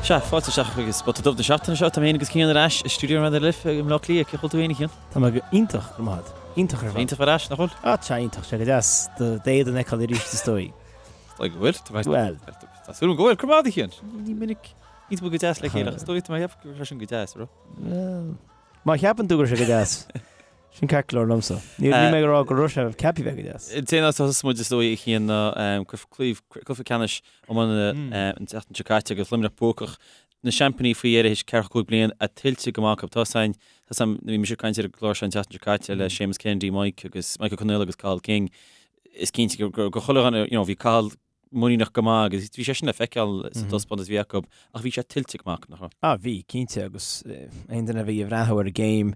Sea, fáilte isteach chuig Spota Dubh na seachtaine seo. Tá mé féin agus Cian ar ais i stiúideo Raidió na Life i mBleá Cliath. Cén chaoi a bhfuil tú féin, a Chian? Tá mé go iontach, go maith. Iontach ar fad. Iontach ar ais, nach bhfuil? Ah, tá iontach. Sé go deas d'éadan a fheiceáil arís is dóigh. Is dóigh go bhfuil. Bhuel. Tá súil agam go bhfuil. Go raibh maith agat, a Chian. Ní minic níos mó go deas le chéile. Is dóigh tá mé ag ceapadh go raibh sé sin go deas, raibh? Bhuel, má cheapann tú go raibh sé go deas, sin ceart go leor liomsa. Níl mé ag rá go raibh sé ceaptha bheith go deas. Cén áit a thosóidh muid is dóigh, a Chian, ná cluiche ceannais iomána an tseachtain seo caite agus Luimneach buacach na seaimpíní faoi dheireadh théis 45 bliain a tuillte go maith acu. Tá san, tá san, bhí mise ag caint ar an gclár seo an tseachtain seo caite le Séamus Kennedy, Mike agus Michael Connell agus Cathal King. Is cinnte go go chuile dhuine, you know, bhí Cathal muiníneach go maith agus bhí sé sin le feiceáil sa taispeántas a bhí acu ach bhí sé tuillte go maith acu, nach raibh? Ah, bhí, cinnte, agus aon duine a bhí ag breathnú ar an gcéim,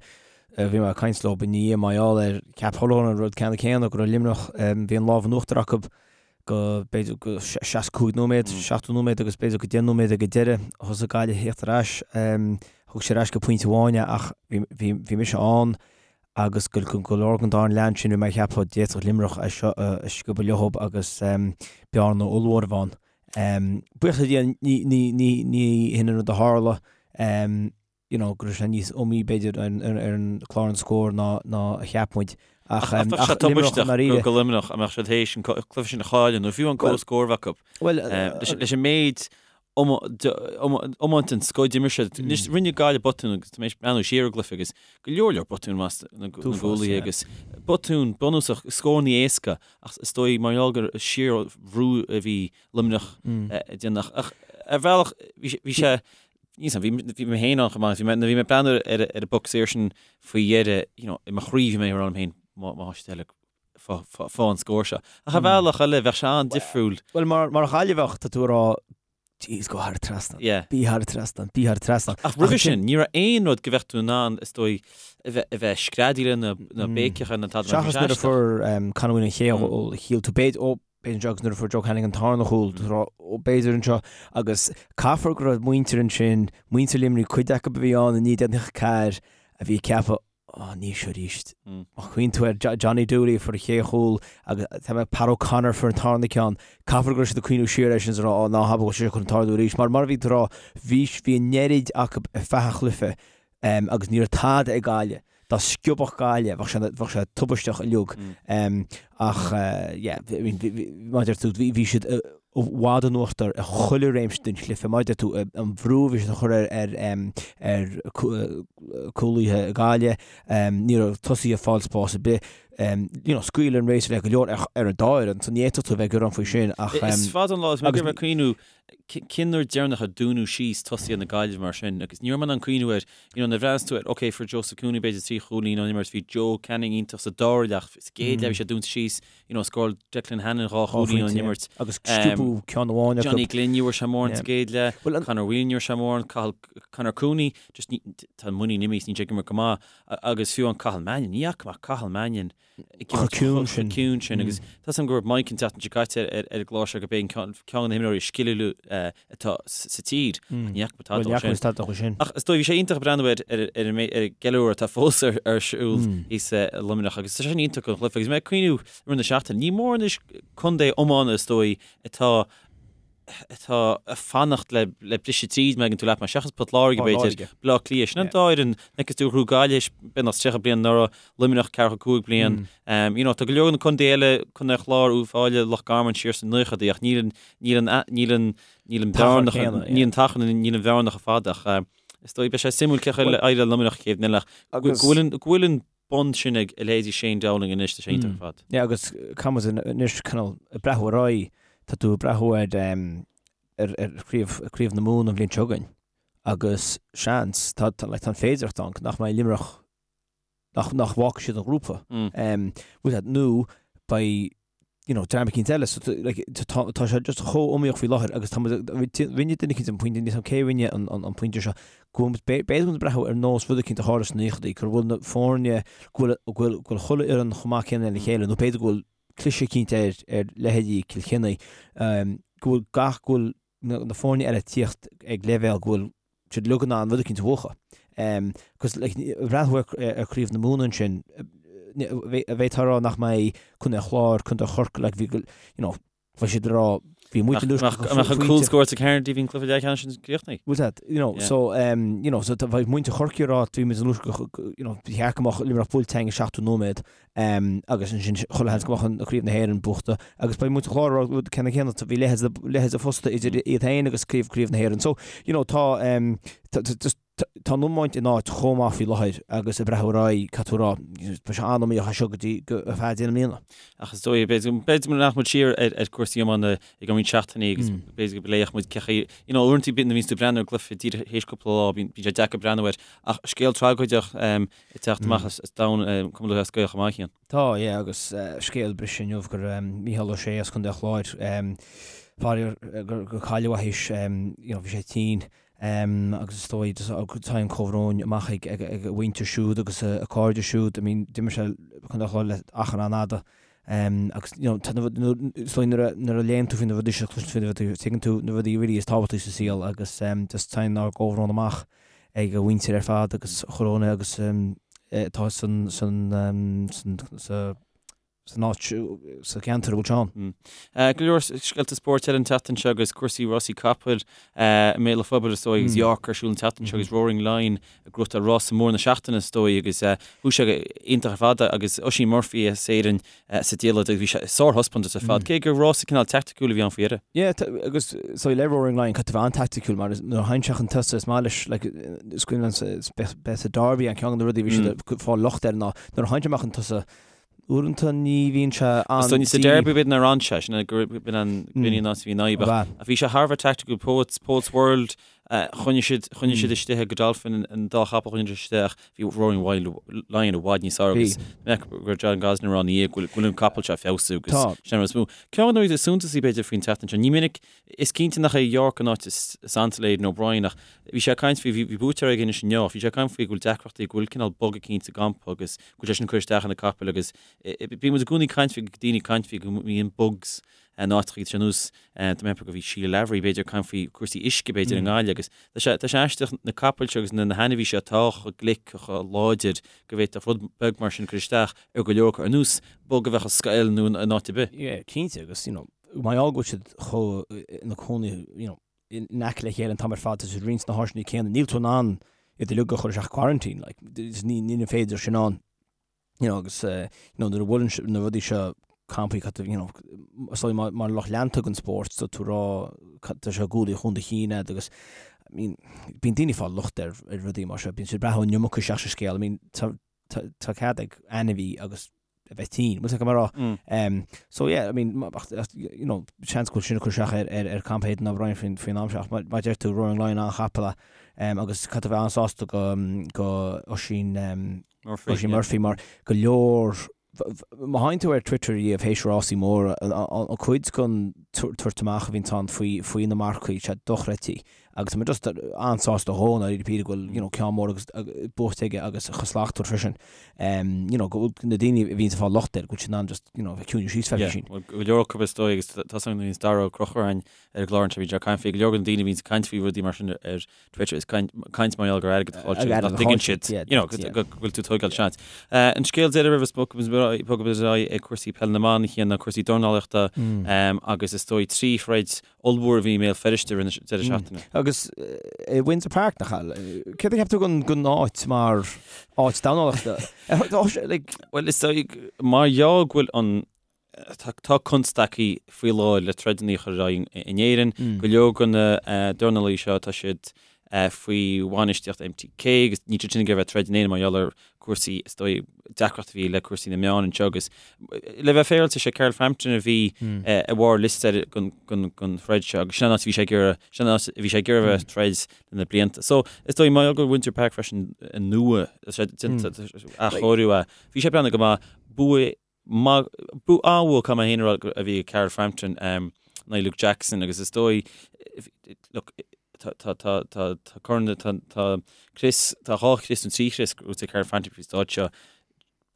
bhí mé ag caint leo i ndiaidh mar gheall air, cheap chuile dhuine an rud ceanna céanna, go raibh Luimneach, bhí an lámh in uachtar acu go b'fhéidir go 65 nóiméad, 70 nóiméad agus b'fhéidir go 10 nóiméad ag an deireadh thosaigh Gaillimh a thíocht ar ais. Thug siad ar ais go pointe amháin é ach bhí mise ann agus go go leor den dara leath ansin bhí mé ag ceapadh d'fhéadfadh Luimneach é seo a sciobadh leothab agus bearna ollmhór a bheith ann. Buíochas le Dia ní hin an rud a tharla. you know, go raibh sé níos iomaí b'fhéidir ar an clár an scór ná ná a cheap muid. Ach ach bheadh sé tubaisteach go Luimneach a mbeadh siad théis an cluiche sin a chailleadh nó fiú an comhscór a bheith acu. Well leis an méid iomáint den scoth d'imir siad. Anois rinne Gaillimh botún agus tá mé ag breathnú siar ar an gcluiche agus go leor leor botún as na gcúlaithe agus botún bunúsach scóranna éasca ach is dóigh mar gheall gur síorbhrú a bhí Luimneach ag déanamh ach ar bhealach bhí sé Níl 's a'm, bhí mé féin ann chomh maith, bhí mé, nuair a bhí mé ag breathnú ar ar an bpoc saor sin faoi dheireadh, you know, i mo chroí bhí mé ag rá liom féin, má má tá siad eile fá fá fá an scór seo. Ach ar bhealach eile, bheadh sé an-difriúil. Bhuel, mar mar Ghaillimheach, tá tú ag rá, jeez, go thar an trasnán. Yeah. Bí thar an trasnán, bí thar an trasnán. Ach roimhe sin, ní raibh aon rud go bheadh tú in ann, is dóigh, a bheith a bheith screadaíl na na béiceach ar na tada mar bhí sé Seachas nuair a fuair Conor Whelan an chéad chúl, shíl tú b'fhéidir, ó, b'fhéidir anseo agus nuair a fuair Joe Canning an tarna chúl, b'fhéidir anseo agus caithfear go raibh muintir ansin, muintir Luimnigh, cuid acu a bhí ann i 1994 a bhí ag ceapadh, Ó, ní seo arís. Má chuimhníonn tú ar Johnny Dooley a fuair an chéad chúl agus tá mé Pat O'Connor a fuair an tarna ceann, caithfear go raibh siad ag cuimhniú siar air sin is ag rá, Ó, ná habair go bhfuil sé seo chun tarlú arís. Mar mar a bhí tú ag rá, bhí bhí an oiread acu ar feadh an chluiche agus ní raibh tada ag Gaillimh. Dá sciobfadh Gaillimh, bheadh sé, bheadh sé tubaisteach uilig. Ach yeah, I mean, mar a deir tú, bhí siad i bhfad in uachtar i chuile réimse den chluiche. Mar a deir tú, an bhrú a bhí siad a chur ar, ar, ar cúlaithe Gaillimh, ní raibh tosaithe ag fáil spás ar bith. You know, scaoileadh an réasúr le go leor ar, ar an dá fhoireann, so ní fhéadfadh tú a bheith ag gearán faoi sin ach. Is fada an lá, is mé ag cuimhniú Cén uair deireanach a dúnadh síos tosaithe na Gaillimhe mar sin? Agus ní raibh mé in ann cuimhniú air. You know, nuair a bhreathnaíos tú air, ok, fuair Joseph Cooney b'fhéidir 3 chúilín ón imirt, bhí Joe Canning iontach sa dara leath, sa gcéad leath bhí sé dúnta síos, you know, scóráil Declan Hannon 2 chúilín ón imirt. Agus sciobadh ceann amháin acu. Johnny Glynn, ní bhfuair sé mórán sa gcéad leath, Conor Whelan ní bhfuair sé mórán, Cathal, Conor Cooney, just ní, tá an muinín imithe, níl sé ag imirt go maith. Agus fiú an Cathal Mannion, ní fhaca mé Cathal Mannion chomh ciúin sin. ciúin sin agus tá 's agam go raibh Mike an tseachtain seo caite ar an gclár seo gurb é ceann de na himreoirí is sciliúla atá sa tír. Ní fhaca mé tada dó sin. Ach is dóigh bhí sé iontach breathnú ar ar an gceiliúradh atá fós ar siúl thíos i Luimneach agus tá sé sin iontach don chluiche agus mé ag cuimhniú i rith na seachtaine. Ní mór anois contae iomána is dóigh atá atá ag fanacht le le briseadh tríd má thuigeann tú leat mé, seachas Port Láirge b'fhéidir, Baile Átha Cliath. Sin an dá fhoireann, like is dóigh ghnóthaigh Gaillimh beagnach 30 bliain anuraidh, Luimneach 45 bliain. You know, tá go leor de na contaetha eile, Contae an Chláir, Uíbh Fhailí, Loch Garman siar sna naochadaí ach níl an níl an níl an níl an bhearna níl an t-achar níl an bhearna chomh fada ach is dóigh beidh sé suimiúil cén chaoi a éireoidh le Luimneach chéad bhliain eile ach go bhfuil an go bhfuil an bonn sin ag a leithéidí Shane Dowling anois, tá sé iontach ar fad. Yeah, agus caithfidh muid anois cineál ag breathnú ar aghaidh, tá tú ag breathnú ar ar ar chraobh craobh na Mumhan an bhliain seo chugainn agus seans, tá tá like tá an féidearthacht ann nach mbeidh Luimneach nach nach bhfágfaidh siad an grúpa. Bhfuil nó beidh you know, dream eicínt eile, so like, tá tá sé just chomh iomaíoch faoi láthair agus tá muid, rinne duine eicínt an pointe, níl 's agam cé a rinne an, an, an pointe seo, go bhfuil muid, b'fhéidir go bhfuil muid ag breathnú ar nós rud eicínt a tharla sna naochadaí, go bhfuil na foirne, go bhfuil, go bhfuil, go bhfuil chuile fhoireann chomh maith céanna lena chéile, nó b'fhéidir go bhfuil cliseadh eicínt ar, ar leithéidí Cill Chainnigh, go bhfuil gach, go bhfuil na, na foirne eile ag tíocht ag leibhéal go bhfuil siad uilig in ann rud eicínt a bhuachan. Cos like breathnú ar Chraobh na Mumhan ansin, bheifeá ag rá nach mbeidh Contae an Chláir, Contae Chorcaí, like bhí go, you know, bheadh siad ag rá. Bhí muintir Luisneach Nach mbeadh an cúl scóráilte ag Harnedy bhí an cluiche leathcheannais sin críochnaithe. Bhfuil that, you know, so, um, you know, so bheadh muintir Chorcaí ag rá bhí muid in Luisneach, you know, ba cheart go mbeadh Luimneach buailte againn i 70 nóiméad, um, agus ansin chuile sheans go mbeadh an Craobh na hÉireann buachta agus beidh muintir Chláir ag rá rud ceannann céanna, bhí leithéid leithéid fosta idir iad féin agus Craobh Craobh na hÉireann. So, you know, tá, um, tá, tá, just, Tá an iomáint in áit chomh maith faoi láthair agus ag breathnú ar aghaidh, caithfidh tú a rá, beidh sé an-iomaíoch as seo go dtí go ar feadh deireadh na bliana. Ach is dóigh, b'fhéidir nach muid siar ar cúrsaí iomána i gceann roinnt seachtainí agus b'fhéidir go bpléifeadh muid cé chaoi, you know, uaireanta bíonn, nuair a bhíonns tú ag breathnú ar gcluiche díreach théis cúpla lá, bíonn sé deacair breathnú air. Ach scéal tragóideach ag teacht amach as domhan Cumann Lúthchleas Gael chomh maith, a Chian. Tá, yeah, agus scéal briste inniu gur Mícheál Ó Sé as Contae an Chláir, faraor gur cailleadh é théis, you know, bhí sé tinn Agus is dóigh, téann comhbhrón amach ag a mhuintir siúd agus a cairde siúd. I mean, d'imir sé Contae an Chláir le achar an-fhada. Agus, you know, is dóigh nuair a léann tú faoi na rudaí seo, cloiseann tú faoi na rudaí, tuigeann tú na rudaí really is tábhachtaí sa saol agus just téann ár gcomhbhrón amach ag a mhuintir ar fad agus chuile dhuine agus atá san, san, san, sa, san áit, sa cheantar a bhfuil sé ann. Go leor scéalta spóirt eile an tseachtain seo agus cúrsaí rásaí capaill i mbéal an phobail is dóigh agus York ar siúl an tseachtain seo agus Roaring Lion ag gnóthachtáil rása mór na seachtaine is dóigh agus chuaigh sé iontach ar fad agus Oisín Murphy as Éirinn sa diallait agus bhí sé sárthaispeántas ar fad cé gur rása cineál teaicticiúil a bhí ann faoi dheireadh. Yeah, agus so le Roaring Lion caithfidh tú a bheith an-teaicticiúil mar nuair a théann sé chun tosaigh is maith leis like is cuimhin liom bheith sa Derby an ceann de na rudaí a bhí siad ag fáil locht air ná nuair a théann sé amach chun tosaigh Uaireanta ní bhíonn sé an. Is dóigh sa Derby b'fhéidir nár fhan sé, sin é gur b'in an b'in an áit a bhí an fhadhb ach ach bhí sé thar a bheith tacticiúil Poets Poets World choinnigh siad choinnigh siad istigh ag Godolphin an dá chapall choinnigh siad istigh ach bhí Roaring Lion i bhfad níos fearr agus mbeadh go raibh John Gosden ag rá ina dhiaidh go bhfuil go bhfuil an capall seo ag feabhsú agus sin an rud is mó. Ceann de na rudaí is suntasaí b'fhéidir faoin tseachtain seo, ní minic Is cinnte nach é York an áit is ansa le Aidan O'Brien ach bhí sé ag caint faoi, bhí buaiteoir aige anois inniu, bhí sé ag caint faoi go bhfuil deacrachtaí, go bhfuil cineál bog eicínt sa gcampa agus go bhfuil sé sin ag cur isteach ar na capaill agus bíonn muid i gcónaí ag caint faoi, daoine ag caint faoi go mbíonn bugs in áiteacha, tá sé ar nós, tá mé ag ceapadh go bhí Sheila Lavery b'fhéidir ag caint faoi cúrsaí uisce b'fhéidir i nGaillimh agus tá sé, tá sé aisteach na capaill seo agus na hainmhí seo atá chomh glic, chomh láidir go bhféadfadh rud beag mar sin cur isteach ar go leor acu ar nós bug a bheadh i scoil nó in áit ar bith. Yeah, cinnte agus you know, Mar gheall go bhfuil siad chomh ina cónaí you know in aice le chéile an t-am ar fad, tá siad ag roinnt na háiseanna céanna, níl tú in ann iad uilig a chur isteach quarantine, like, ní ní féidir sin ann. You know, agus eh, you know, nuair a bhuaileann na rudaí seo campaí cad you know, is dóigh mar mar lucht leanta den spórt tá tú ag rá tá sé gualaí chun do chinn agat agus I mean, bíonn daoine ag fáil locht ar ar rudaí mar seo, bíonn siad ag brath an iomarca isteach sa scéal, I mean, tá tá tá cead ag ainmhí agus a bheith tinn. Bhfuil a fhios agat mar rá. So yeah, I mean, you know, seans go bhfuil sin ag cur isteach ar ar ar campa Aidan O'Brien faoin faoin am seo ach mar a deir tú Roaring Lion an-chapall é agus caithfidh tú a bheith an-sásta go go Oisín Murphy, Oisín Murphy mar go leor má théann tú ar Twitter riamh théis rásaí móra an cuid den tabhairt amach a bhíonn ann faoi faoi na marcaigh sé dochreidte. Agus tá mé just an-sásta dhó i ndáiríre go bhfuil you know ceann mór agus buaite aige agus chomh slachtmhar freisin. You know go bhfuil na daoine a bhíonns ag fáil locht air go bhfuil siad in ann just you know bheith ciúin síos feicfidh sin. Yeah, go leor acu is dóigh agus tá a fhios agam nuair a bhíonns Dara Ó Conchúir againn ar an gclár anseo bíonn sé ag caint faoi go leor de na daoine a bhíonns ag caint faoi rudaí mar sin ar Twitter is caint mar gheall gur airgead a chaill siad nach dtuigeann siad you know go bhfuil tú ag tógáil seans. An scéal deiridh roimh a bhogfaidh muid ar aghaidh ag cúrsaí peile na mban a Chian ná cúrsaí dornálaíochta agus is dóigh 3 throid ollmhór a bhí i mBéal Feirste i rith na deireadh seachtaine. Agus i Windsor Park, nach ea? Céard a cheap tú den áit mar áit dornálaíochta? Bhuel, is dóigh, mar gheall go bhfuil an, tá constaicí faoi láthair le troideanna a chur ar aghaidh in Éirinn, go leor de na dornálaí seo, tá siad faoi bhainistíocht MTK agus níl siad sin ag iarraidh a bheith ag troid in Éirinn mar gheall ar cúrsaí, is dóigh, deacracht a bhí le cúrsaí na meán anseo agus le bheith féaráilte, sé Carl Frampton a bhí i bharr liosta den throid seo agus sin an áit a bhí sé ag iarraidh, sin an áit a bhí sé ag iarraidh a bheith ag troid le na blianta. So, is dóigh, mar gheall go bhfuil Windsor Park freisin nua, tá sé déanta, athchóiriú é, bhí sé ag breathnú go maith, bua maith, bua an-bhua caithfidh mé féin a rá a bhí ag Carl Frampton in aghaidh Luke Jackson agus is dóigh, look, tá, tá, tá, tá, tá corn, tá, tá crios, tá dhá chrios nó trí chrios gnóthaithe ag Carl Frampton faoin stáid seo.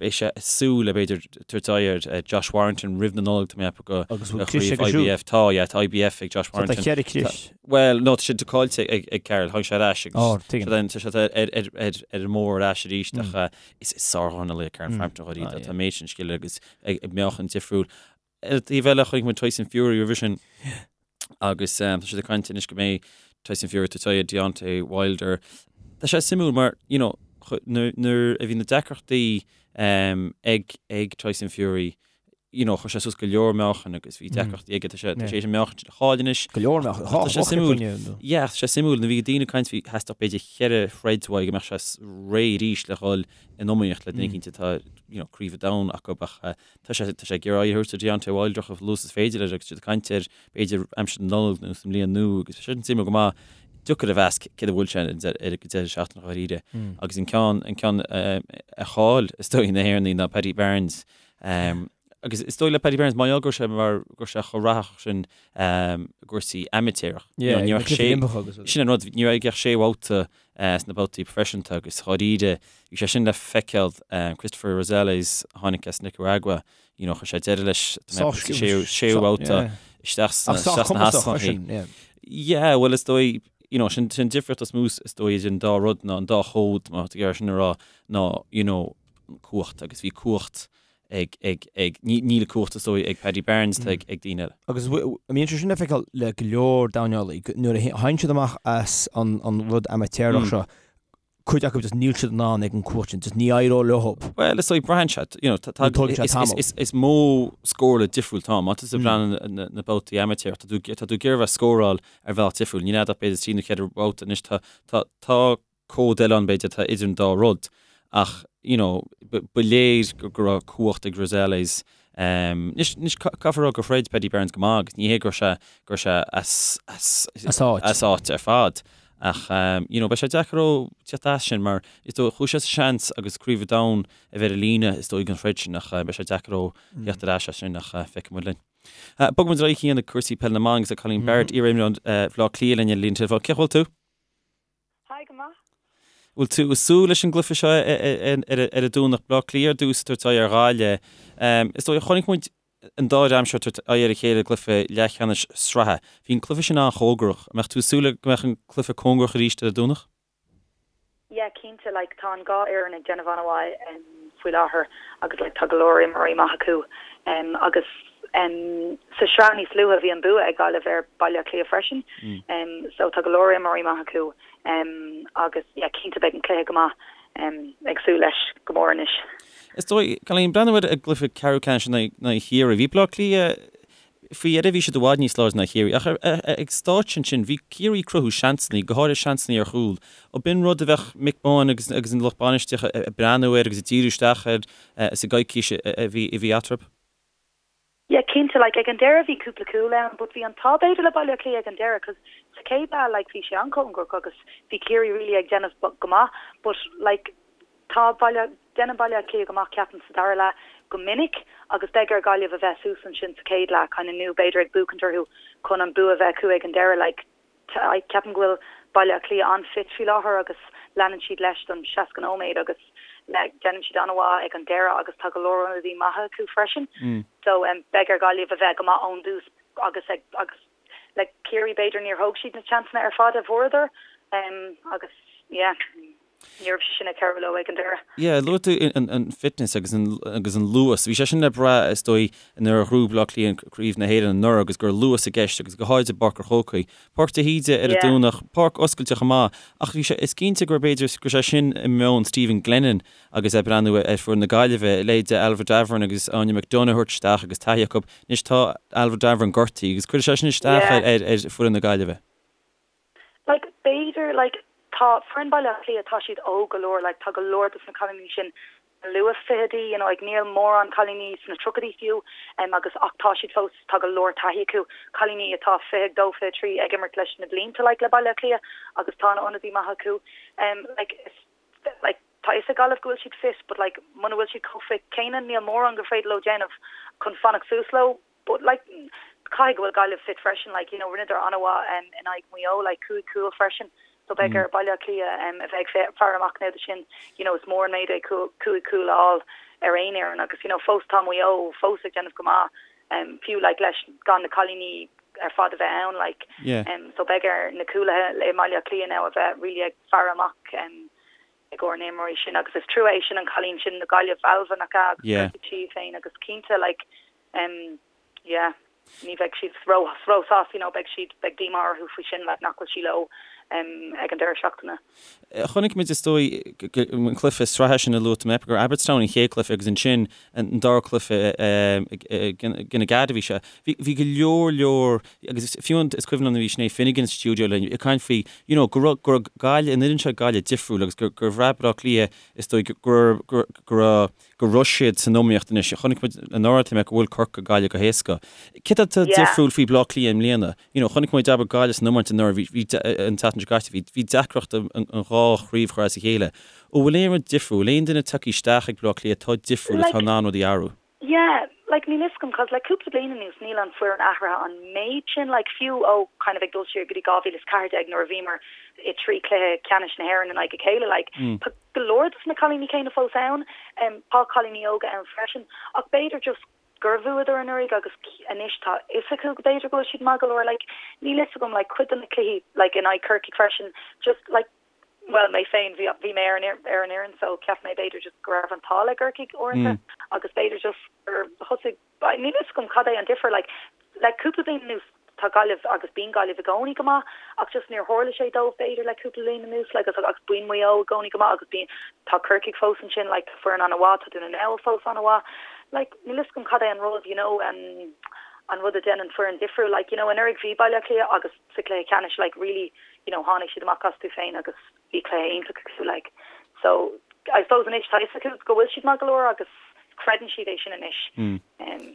Beidh sé ag súil le b'fhéidir tabhairt aghaidh ar Josh Warrington roimh na Nollag, tá mé ag ceapadh go Agus bhfuil crios aige siúd? IBF, tá, yeah, tá IBF ag Josh So tá Warrington. cheithre chrios. Bhuel, no, tá sé caillte ag, ag Carl, tháinig sé ar ais agus Ó, tuigim. tá sé ar, ar, ar, ar an mbóthar ar ais arís ach Is sárdhornálaí é Carl Frampton dháiríre. Tá an méid sin scil aige agus ag meáchan difriúil. Ar an taobh eile, chonaic muid Tyson Fury roimhe sin. Agus tá siad ag caint anois go mbeidh Tyson Fury ag tabhairt aghaidh ar Deontay Wilder. Tá sé suimiúil mar, you know, nuair a bhí na deacrachtaí ag ag Tyson Fury, you know, chuir sé suas go leor meáchain agus bhí deacrachtaí aige, tá sé tá sé an meáchan sin a chaill anois. Go leor meáchain, tá sé suimiúil. Yeah, tá sé suimiúil, nuair a bhí daoine ag caint bhí theastódh b'fhéidir cheithre throid uaidh go mbeadh sé réidh arís le dhul in iomaíocht le duine éicint atá, you know, craobh an domhain acu ach Tá sé tá sé ag iarraidh aghaidh a thabhairt ar Deontay Wilder chomh luath is is féidir leis agus siad ag caint air b'fhéidir aimsir na Nollag nó sa mbliain nua agus tá sé sin suimiúil go maith. Deacair a mheas céard a bhfuil sé ar an deireadh seachtaine dháiríre. Agus an ceann an ceann a chaill is dóigh na hÉireannaigh ná Paddy Barnes. Agus is dóigh le Paddy Barnes mar gheall go raibh sé mar go raibh sé chomh rathach sin i gcúrsaí amaitéarach. Ní raibh sé sin an rud ní raibh aige ach sé bhabhta sna babhtaí proifisiúnta agus dháiríre bhí sé sin le feiceáil Cristofer Rosales a tháinig as Nicaragua you know chuir sé deireadh leis sa séú babhta isteach sna hascainí. Yeah bhuel is dóigh you know sin sin difríocht is mó is dóigh idir an dá rud ná an dá chód má tá tú ag iarraidh sin a rá ná you know cumhacht agus bhí cumhacht ag, ag, ag, níl cumhacht is dóigh ag Paddy Barnes, tá ag, ag daoine eile. Agus an mbíonn sé sin le feiceáil le go leor dornálaí, nuair a thagann siad amach as an, an rud amaitéarach seo, cuid acu just níl siad in ann ag an cumhacht sin, just ní éireoidh leo. Bhuel, is dóigh braitheann sé, you know, tá, tá, tógann sé tamall. is, is, is modh scórála difriúil atá ann. Má tá tú ag breathnú na, na babhtaí amaitéarach, tá tú, tá tú ag iarraidh a bheith ag scóráil ar bhealach difriúil. Níl a'd ach b'fhéidir trí nó cheithre bhabhta anois, tá, tá, tá cód eile ann b'fhéidir atá idir an dá rud ach you know ba léir go raibh cumhacht ag Rosales. Anois anois caithfear a rá gur throid Paddy Barnes go maith agus ní hé go raibh sé go raibh sé as as As áit. as áit ar fad ach you know beidh sé deacair dó teacht as sin mar is dóigh chuaigh sé sa seans agus Craobh an Domhain a bheith ar an líne is dóigh don throid sin ach beidh sé deacair dó theacht ar ais as sin ach feicfidh muid linn. Bogfaidh muid ar aghaidh chuig cúrsaí peile na mban agus tá Colleen Barrett iar-imreoir Bhaile Átha Cliath linn ar an líne teileafóin. Cén chaoi a bhfuil tú? Hi, go maith. Bhfuil tú ag súil leis an gcluiche seo ar an Domhnach, Baile Átha Cliath ar dtús ag tabhairt aghaidh ar Ghaillimh. Is dóigh, chonaic muid an dá dhream seo ag tabhairt aghaidh ar a chéile i gcluiche leathcheannais sraithe. Bhí an cluiche sin an-chóngarach. An mbeadh tú ag súil go mbeadh an cluiche cóngarach arís ar an Domhnach? Yeah, cinnte. Like, tá an dhá fhoireann ag déanamh an-mhaith faoi láthair agus like tá go leor imreoirí maith acu. Agus sa sraith níos luaithe bhí an bua ag Gaillimh ar Baile Átha Cliath freisin. So tá go leor imreoirí maith acu agus yeah cinnte beidh an cluiche go maith. Ag súil leis go mór anois. Is dóigh, Colleen, breathnú ar an gcluiche ceathrú ceannais in aghaidh Chiarraí. Bhí Baile Átha Cliath faoi dheireadh bhí siad i bhfad níos láidre ná Ciarraí ach ag stáitse ansin bhí Ciarraí ag cruthú seansanna, go háirithe seansanna ar chúl. Ab in rud a bheadh Mick Bohan agus agus an lucht bainistíochta ag breathnú air agus ag díriú isteach air sa gcoicís a bhí a bhí eatarthu? Yeah, cinnte, like ag an deireadh bhí cúpla cúl ann but bhí an t-ádh b'fhéidir le Baile Átha Cliath ag an deireadh cos sa chéad leath like bhí sé an-chóngarach agus bhí Ciarraí really ag déanamh go maith but like tá Baile, déanann Baile Átha Cliath go maith ceapaim sa dara leath go minic agus beidh ar Gaillimh a bheith suas ansin sa chéad leath kind of nó b'fhéidir ag buachaint orthu chun an bua a bheith acu ag an deireadh like Ceapaim go bhfuil Baile Átha Cliath an-fit faoi láthair agus leanann siad leis don 60 nóiméad agus déanann siad an-mhaith ag an deireadh agus tá go leor ionadaí maithe acu freisin. So beidh ar Ghaillimh a bheith go maith ón dtús agus ag agus le Ciarraí b'fhéidir níor thóg siad na seansanna ar fad a bhfuaireadar agus yeah. Ní raibh sé sin ag cabhrú leo ag an deireadh. Yeah, luaigh tú an fitness agus an agus an luas. Bhí sé sin le brath is dóigh nuair a ghnóthaigh Baile Átha Cliath Craobh na hÉireann anuraidh agus go raibh luas i gceist agus go háirid i bPáirc an Chrócaigh. Páirc de hÍde ar an Domhnach, páirc oscailte chomh maith ach bhí sé, is cinnte gur b'fhéidir go raibh sé sin i meon Stephen Glennon agus é ag breathnú ar foireann na Gaillimhe, leithéid de Ailbhe Davoren agus Áine McDonagh a thabhairt isteach agus taithí acu. Anois tá Ailbhe Davoren gortaithe agus cuirfidh sé sin isteach ar ar foireann na Gaillimhe. Like, b'fhéidir, like, tá foireann Baile Átha Cliath, tá siad óg go leor, like, tá go leor dos na cailíní sin sna luath fichidí, you know, like, níl mórán cailíní sna tríochaidí fiú, em, agus, ach tá siad fós, tá go leor taithí acu, cailíní atá 22, 23 ag imirt leis na blianta, like, le Baile Átha Cliath agus tá na ionadaí maith acu, em, like, is, like, tá fhios ag Gaillimh go bhfuil siad fit, but, like, muna bhfuil siad chomh fit céanna, níl mórán gur féidir leo déanamh chun fanacht suas leo. But like caithfidh go bhfuil Gaillimh fit freisin like you know rinneadar an-mhaith um, in aghaidh Maigh Eo like 5 cúl freisin so beidh ar Baile Átha Cliath um, a bheith ag faire amach now do sin you know is mór an méid é 5 cúl a fháil ar aon fhoireann agus you know fós tá Maigh Eo fós ag déanamh go maith um, fiú like leis gan na cailíní ar fad a bheith ann like yeah. um, so beidh ar na cúlaithe i mBaile Átha Cliath now a bheith really ag faire amach um, i gcomhair na n-imreoirí sin agus is trua é sin an cailín sin na Gaillimh Ailbhe nach ea agus Yeah. gortaigh sí féin agus cinnte like um yeah. Ní bheidh siad ró-sásta, you know, beidh siad, beidh díomá orthu faoi sin, like, nach bhfuil sí leo ag an deireadh seachtaine. Chonaic muid, is dóigh, an cluiche sraithe sin a luaigh tú, gur Abbotstown an chéad cluiche agus ansin an dara cluiche i gcoinne Aghada a bhí sé. Bhí go leor leor, agus fiú is cuimhin liom nuair a bhí Sinéad Finnegan sa stiúideo linn ag caint faoi, you know, go raibh, go raibh Gaillimh, an fhoireann seo Gaillimh difriúil agus gur, gur bhraith Baile Átha Cliath, is dóigh, go, go, go raibh, go raibh siad san iomaíocht anois. Chonaic muid anuraidh, tá mé go bhfuair Corcaigh Gaillimh go héasca. Céard atá difriúil faoi Bleá Cliath i mbliana? You know, chonaic muid abair Gaillimh san iomáint anuraidh, bhí, bhí, an tseachtain seo caite, bhí, bhí deacracht an, an dhá chraobh a chur as a chéile. An bhfuil aon rud difriúil, bhfuil aon duine tagtha isteach ag Bleá Cliath atá difriúil, atá in ann rudaí a athrú? Yeah, like níl fhios agam 'cause le cúpla bliain anuas níl an foireann athraithe an méid sin, like fiú ó kind of ag dul siar go dtí 2014 nuair a bhíomar i dtrí cluiche ceannais na hÉireann in aghaidh a chéile, like tá go leor dos na cailíní céanna fós ann, tá cailíní óga ann freisin ach b'fhéidir just gur bhuadar anuraidh agus anois tá fhios acu go b'fhéidir go bhfuil siad maith go leor, like níl fhios agam like cuid de na cluichí like in aghaidh Corcaigh freisin just like bhuel mé féin bhí bhí mé ar an ar an fhoireann so cheap mé b'fhéidir just go raibh an t-ádh le gCorcaigh uaireanta agus b'fhéidir just gur thosaigh níl fhios agam cad é an difear like le cúpla bliain anuas tá Gaillimh agus bíonn Gaillimh i gcónaí go maith ach just níor tharla sé dóibh b'fhéidir le cúpla bliain anuas like agus agus bíonn Maigh Eo i gcónaí go maith agus bíonn tá Corcaigh fós ansin like tá foireann an-mhaith tá Dún na nGall fós an-mhaith like níl fhios agam cad é an rud you know an an rud a dhéanann foireann difriúil like you know anuraidh bhí Baile Átha Cliath agus sa chluiche ceannais like really you know tháinig siad amach astu féin agus bhí cluiche iontach acu like so I suppose anois tá fhios acu go bhfuil siad maith go leor agus creideann siad é sin anois. Um.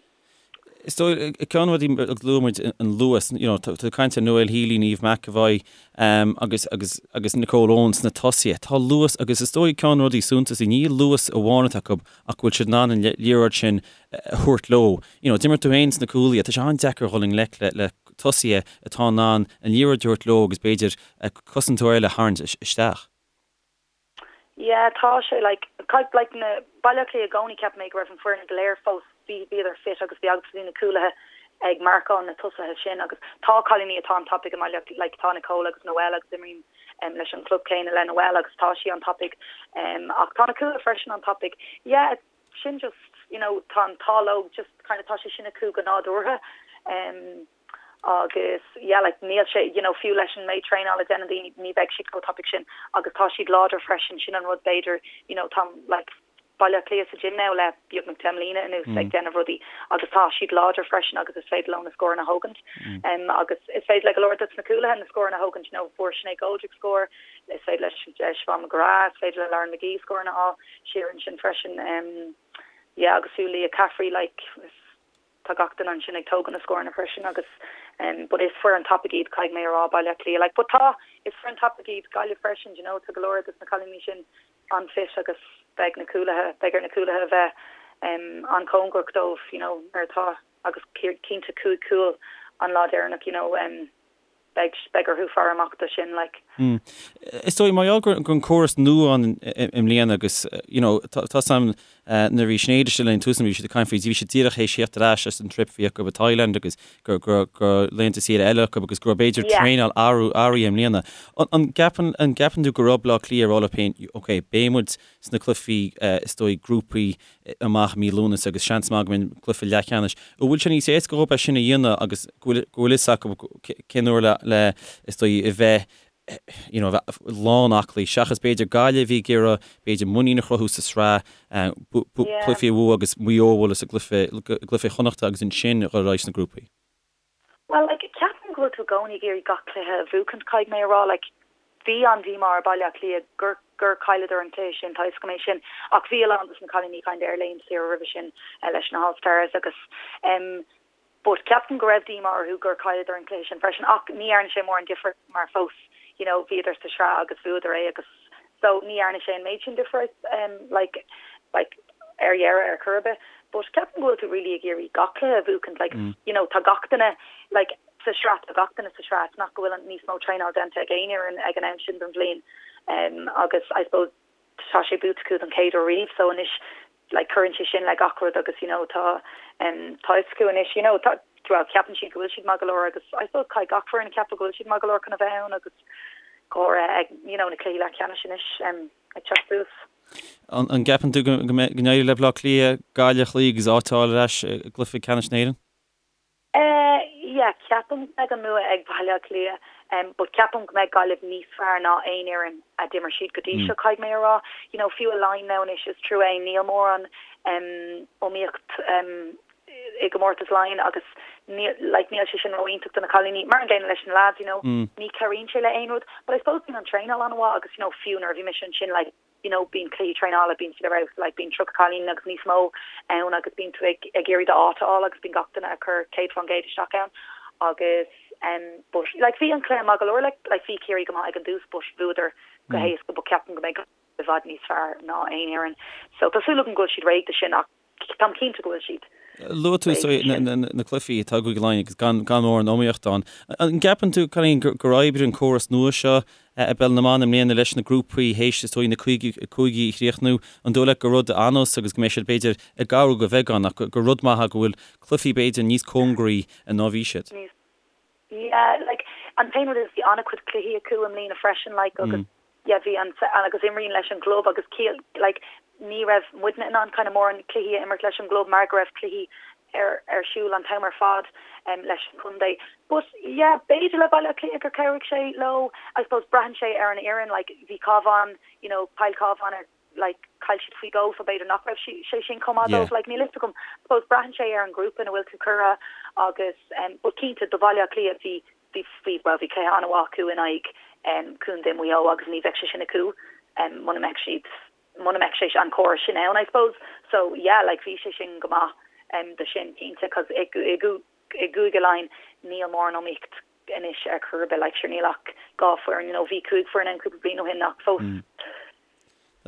Is dóigh ceann de na rudaí a luaigh muid an luas you know tá tú ag caint ar Noelle Healy, Niamh McEvoy um, agus agus agus Nicole Owens sna tosaithe. Tá luas agus is dóigh ceann de na rudaí suntasaí ní luas amháin atá acu ach go bhfuil siad in ann an liathróid sin a thabhairt leo. You know, d'imir tú féin sna cúlaithe, tá sé an-deacair dhul i ngleic le le tosaithe atá in ann an liathróid a thabhairt leo agus b'fhéidir cosantóir eile a tharraingt isteach. Yeah, tá sé like, like na Baile Átha Cliath i gcónaí cheap mé go raibh an foireann go léir fós, bhí, bhíodar fit agus bhí agus bhí na cúlaithe ag marcáil na tosaithe sin agus tá cailíní atá an-tapaidh i mBaile Átha like tá Nicole agus Noelle agus imrím um, leis an club céanna le Noelle agus tá sí an-tapaidh um, ach tá na cúlaithe freisin an-tapaidh. Yeah, sin just, you know, tá an t-ádh leo just kind of tá sé sin acu go nádúrtha um, agus yeah like níl sé you know fiú leis an méid traenála a déanann daoine ní bheidh siad chomh tapaidh sin agus tá siad láidir freisin sin an rud b'fhéidir you know tá like Baile Átha Cliath sa gym now le beagnach 10 mbliana anuas mm. ag déanamh rudaí agus tá siad láidir freisin agus is féidir leo na scóranna a thógaint mm. um, agus is féidir le go leor de na cúlaithe na scóranna a thógaint you know fuair Sinéad Goldrick scór is féidir le Siobhan McGrath is féidir le Lauren McGee scóranna a fháil siar ansin freisin um, yeah agus fiú Leah Caffrey like is tá gach duine ansin ag tógaint na scóranna freisin agus um, but is foireann tapaidh iad caithfidh mé a rá Baile Átha Cliath like but tá is foireann tapaidh iad Gaillimh freisin you know tá go leor de na cailíní sin an-fit agus beidh na cúlaithe beidh ar na cúlaithe a bheith um, an-chóngarach dóibh you know nuair atá agus cinnte cúig cúl an lá deireanach you know um, beidh beidh orthu faire amach do sin like. Is dóigh mar gheall go an córas nua ann i mbliana agus you know tá 's a'm nuair a bhí Sinéad istigh linn tús bhí siad ag caint faoi bhí siad díreach théis theacht ar ais as an trip a bhí acu i Thailand agus go go go laethanta saoire eile acu agus go raibh b'fhéidir traenáil athraithe i mbliana. An gceapann an gceapann tú go raibh Bleá Cliath ag rá leo féin ok beidh muid sna cluichí is dóigh grúpaí amach mí Lúnasa agus seans maith go mbeidh cluiche leathcheannais. An bhfuil sé níos éasca dhóibh é sin a dhéanamh agus go bhfuil go bhfuil fhios acu cén uair le le is dóigh a bheith you know a bheith lán aclaí seachas b'fhéidir Gaillimh a bhí ag iarraidh b'fhéidir muinín a chruthú sa sraith cluichí a bhua agus Maigh Eo a bhualadh sa gcluiche gcluiche Chonnachta agus ansin a dhul ar aghaidh sna grúpaí. Bhuel, like, ceapaim go bhfuil tú i gcónaí ag iarraidh gach cluiche a bhuachaint, caithfidh mé a rá. Like, bhí an-díomá ar Baile Átha Cliath gur, gur chailleadar an cluiche sin, tá 'fhios agam é sin, ach bhí a lán dos na cailíní kind of ar laethanta saoire roimhe sin leis na All Stars agus em, but ceapaim go raibh díomá orthu gur chailleadar an cluiche sin freisin ach ní dhearna sé mórán difir mar fós, you know, bhíodar sa sraith agus bhuadar é agus so ní dhearna sé an méid sin difir em, like, like, ar dheireadh ar chor ar bith but ceapaim go bhfuil tú really ag iarraidh gach cluiche a bhuachaint like you know tá gach duine like sa sraith tá gach duine sa sraith it's not go bhfuil níos mó traenáil déanta ag aon fhoireann ag an am sin den bhliain um, agus I suppose tá sé buaite acu don chéad uair riamh so anois like cuireann sé sin le gach rud agus you know tá um, tá fhios acu anois you know tá well ceapann siad go bhfuil siad maith go leor agus I suppose caithfidh gach foireann ceapadh go bhfuil siad maith go leor chun a bheith ann agus go háirithe ag you know na cluichí leathcheannais anois um, ag teacht suas. An gceapann tú go n-éireoidh le Baile Átha Cliath Gaillimh a chloí agus áit a fháil ar ais i gcluiche ceannais na hÉireann? Eh yeah, ceapaim go mbeidh an bua ag Baile Átha Cliath em but ceapaim go mbeidh Gaillimh níos fearr ná aon fhoireann a d'imir siad go dtí seo, caithfidh mé a rá. You know, fiú i Laighin now anois is trua é, níl mórán em iomaíocht em i gcomórtas Laighean agus níl like níl sé sin ró-iontach do na cailíní. Mar an gcéanna leis na lads, you know, ní chabhraíonn sé le aon rud but I suppose bíonn an traenáil an-mhaith agus you know fiú nuair a bhí mise ansin like you know bíonn cluichí traenála, bíonn siad ar fheabhas, like bíonn 30 cailín agus níos mó ann agus bíonn tú ag ag iarraidh d'áit a fháil agus bíonn gach duine ag cur 100% isteach ann agus em but like bhí an cluiche maith go leor like like bhí Ciarraí go maith ag an dtús but bhuadar go héasca but ceapaim go mbeidh i bhfad níos fearr ná aon fhoireann so tá súil agam go bhfuil siad réidh do sin ach Táim cinnte go bhfuil siad. Luaigh tú na cluichí atá i gCúige Laighean agus gan mórán iomaíochta ann. An gceapann tú, Cailín, gur oibrigh an córas nua seo i bPeil na mBan i mbliana leis na grúpaí théis is dóigh na cúigí a chríochnú? An dóigh leat gur rud an-nós agus go mbeidh siad b'fhéidir ag athrú de bheagán ach gur rud maith é go bhfuil cluichí b'fhéidir níos cóngaraí ná bhí siad? Yeah, like, an t-aon rud is bhí an-chuid cluichí acu i mbliana freisin, like, agus yeah, bhí an, agus imríonn leis an gclub agus ciall, like, ní raibh muidne in ann kind of mórán cluichí a imirt leis an gclub mar go raibh cluichí ar, ar siúl an t-am ar fad um, leis an chontae. But yeah, b'fhéidir le Baile Átha Cliath gur chabhraigh sé leo, I suppose braitheann sé ar an fhoireann, like, bhí Cabhán, you know, chaill Cabhán ar like chaill siad faoi dhó so b'fhéidir nach raibh sé sin chomh maith dóibh, like níl fhios agam. I suppose braitheann sé ar an ghrúpa ina bhfuil tú curtha agus em but cinnte do Bhaile Átha Cliath bhí bhí bhí bhuel bhí cluiche an-mhaith acu in aghaidh em Contae Mhaigh Eo agus ní bheadh sé sin acu em muna mbeadh siad muna mbeadh sé an córas sin ann I suppose. So yeah like bhí sé sin go maith em do sin cinnte cos i i i gCúige Laighean níl mórán iomaíocht anois ar chor ar bith like sure níl ach 2 foireann you know bhí 5 foireann ann cúpla bliain ó shin ach fós